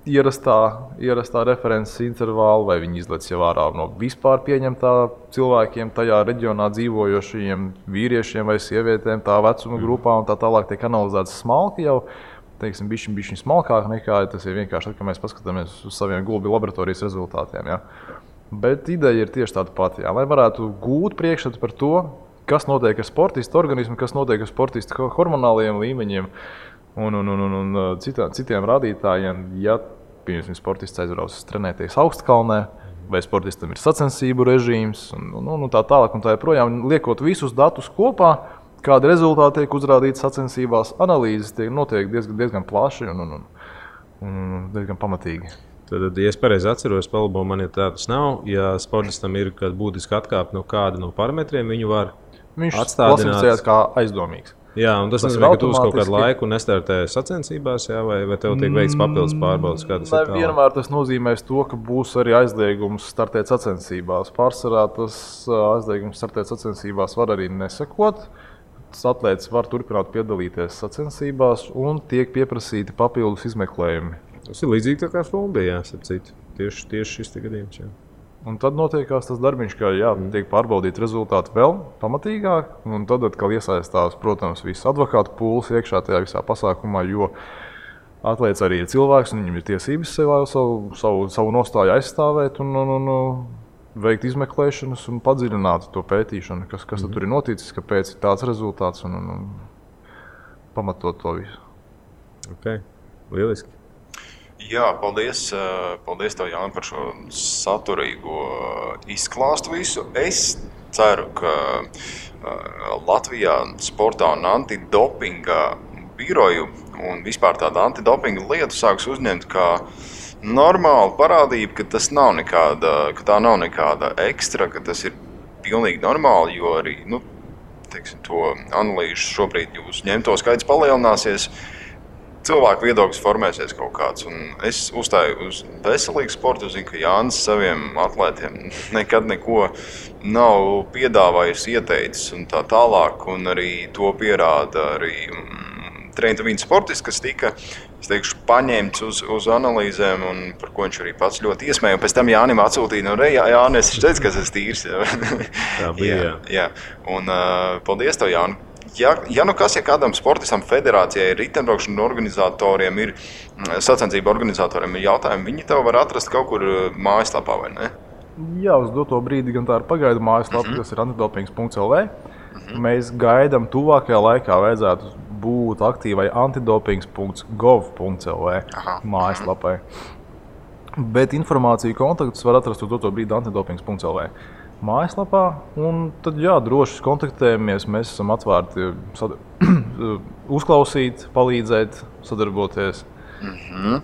ierastā references intervāla, vai viņi izlec jau ārā no vispār pieņemtā cilvēkiem, tajā reģionā dzīvojošajiem vīriešiem vai sievietēm, tā vecuma grupā un tā tālāk tiek analizēts smalki jau, bišķiņ smalkāk nekā tas ir vienkārši, kad mēs paskatāmies uz saviem gulbi laboratorijas rezultātiem. Ja. Bet ideja ir tieši tāda pati, lai varētu gūt priekšstatu par to, kas notiek ar sportistu organismu, kas notiek ar sportistu hormonālajiem līmeņiem un citiem rādītājiem. Ja, piemēram, sportists aizbrauc trenēties augstkalnē, vai sportistam ir sacensību režīms, un tā tālāk un tā joprojām, liekot visus datus kopā, kādi rezultāti tiek uzrādīti sacensībās, analīzes notiek diezgan plaši un diezgan pamatīgi. Tad, ja es pareizi atceros, palabo man, ja tā tas nav, ja sportistam ir būtiski atkāpt no kāda no parametriem, viņu var viņš klasificējās kā aizdomīgs. Jā, un tas nozīmē, ka tu uz kaut kādu laiku nestartē sacensībās, jā, vai tev tiek veikts papildus pārbaudes, kā tas ir tālāk? Vienmēr tas nozīmēs to, ka būs arī aizliegums startēt sacensībās. Pārsvarā tas aizliegums startēt sacensībās var arī nesakot. Atlētis var turpināt piedalīties sacensībās un tiek pieprasīti papildus izmeklējumi. Tas ir līdzīgi tā kā Flombijā, tieši šis gadījums. Jā. Un tad notiekās tas darbiņš, ka tiek pārbaudīti rezultāti vēl pamatīgāk, un tad atkal iesaistās, protams, viss advokātu pūles iekšā tajā visā pasākumā, jo atlēts arī ir cilvēks, un viņam ir tiesības savu nostāju aizstāvēt un veikt izmeklēšanas un padziļināt to pētīšanu, kas tad tur ir noticis, kāpēc ir tāds rezultāts un pamatot to visu. Ok, lieliski. Jā, paldies tev, Jāni, par šo saturīgo izklāstu visu. Es ceru, ka Latvijā sportā un antidopinga biroju un vispār tādu antidopinga lietu sāks uzņemt kā normāla parādība, ka tā nav nekāda ekstra, ka tas ir pilnīgi normāli, jo arī, to analīžu šobrīd jūs ņemto skaits palielināsies. Cilvēku viedoklis formēsies kaut kāds, un es uzstāju uz veselīgu sportu. Zinu, ka Jānis saviem atlētiem nekad neko nav piedāvājis, ieteicis un tā tālāk, un arī to pierāda arī treniņu sportists, kas tika, paņemts uz analīzēm, un par ko viņš arī pats ļoti iesmēja. Un pēc tam Jānim atsūtīja, Jāni, es teicu, ka es teicu, Tā bija, jā. Un paldies tev, Jāni. Ja kādam sportistam, federācijai, riteņbraukšanas organizatoriem, sacensību organizatoriem ir jautājumi, viņi tev var atrast kaut kur mājaslapā, vai ne? Jā, uz doto brīdi gan tā ir pagaidu mājaslapa, kas ir antidopings.lv. Mēs gaidām tuvākajā laikā vajadzētu būt aktīvai antidopings.gov.lv mājaslapai. Bet informāciju kontaktus var atrast uz doto brīdi antidopings.lv. mājaslapā, un tad droši kontaktējamies. Mēs esam atvērti uzklausīt, palīdzēt, sadarboties.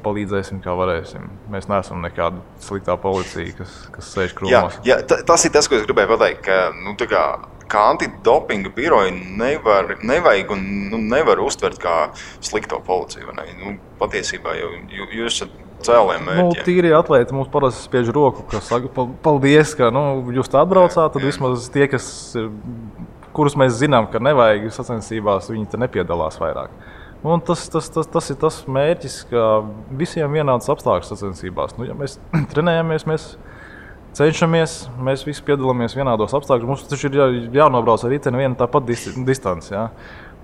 Palīdzēsim, kā varēsim. Mēs neesam nekāda sliktā policija, kas sēž krūmos. Jā, tas ir tas, ko es gribēju pateikt, ka antidopinga biroju nevajag un nevar uztvert kā slikto policiju. Patiesībā jūs esat cēliem mērķiem. Tīri atlēti mums parasti spiež roku, kas saka, paldies, ka jūs tā atbraucāt, tad vismaz tie, kurus mēs zinām, ka nevajag sacensībās, viņi te nepiedalās vairāk. Un tas ir tas mērķis, ka visiem vienāds apstākļus sacensībās. Ja mēs trenējamies, mēs cenšamies, mēs visi piedalāmies vienādos apstākļos. Mums taču ir jānobrauc ar riteni viena tāpat distance. Ja?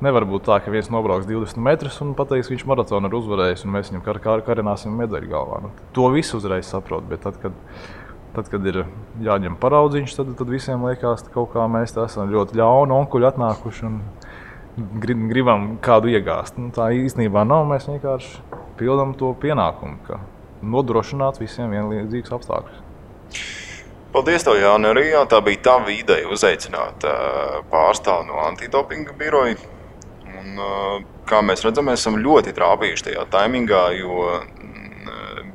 Nevar būt tā, ka viens nobrauks 20 metrus un pateiks, viņš maratonu ir uzvarējis, un mēs viņam karināsim medaļu galvā. To visu uzreiz saprot, bet tad, kad ir jāņem paraudziņš, tad visiem liekas, ka kaut kā mēs esam ļoti ļauni onkuļi atnākuši un gribam kādu iegāzt. Tā īstenībā nav, mēs vienkārši pildam to pienākumu, ka nodrošināt visiem vienlīdzīgus apstākļus. Paldies tev, Jāni, arī. Tā bija tava ideja uzaicināt pārstāvu no antidopinga biroja. Un, kā mēs redzam, mēs esam ļoti trāpījuši tajā taimingā, jo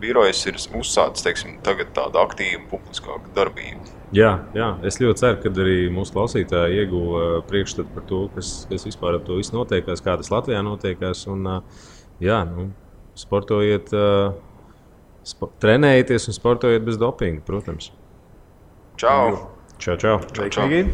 birojas ir uzsācis, tagad tādu aktīvu publiskāku darbību. Jā, es ļoti ceru, ka arī mūsu klausītāji ieguva priekšstatu par to, kas vispār ar to visu notiekās, kā tas Latvijā notiekās. Un, sportojiet, trenējieties un sportojiet bez dopinga, protams. Čau! Čau! Sveiki!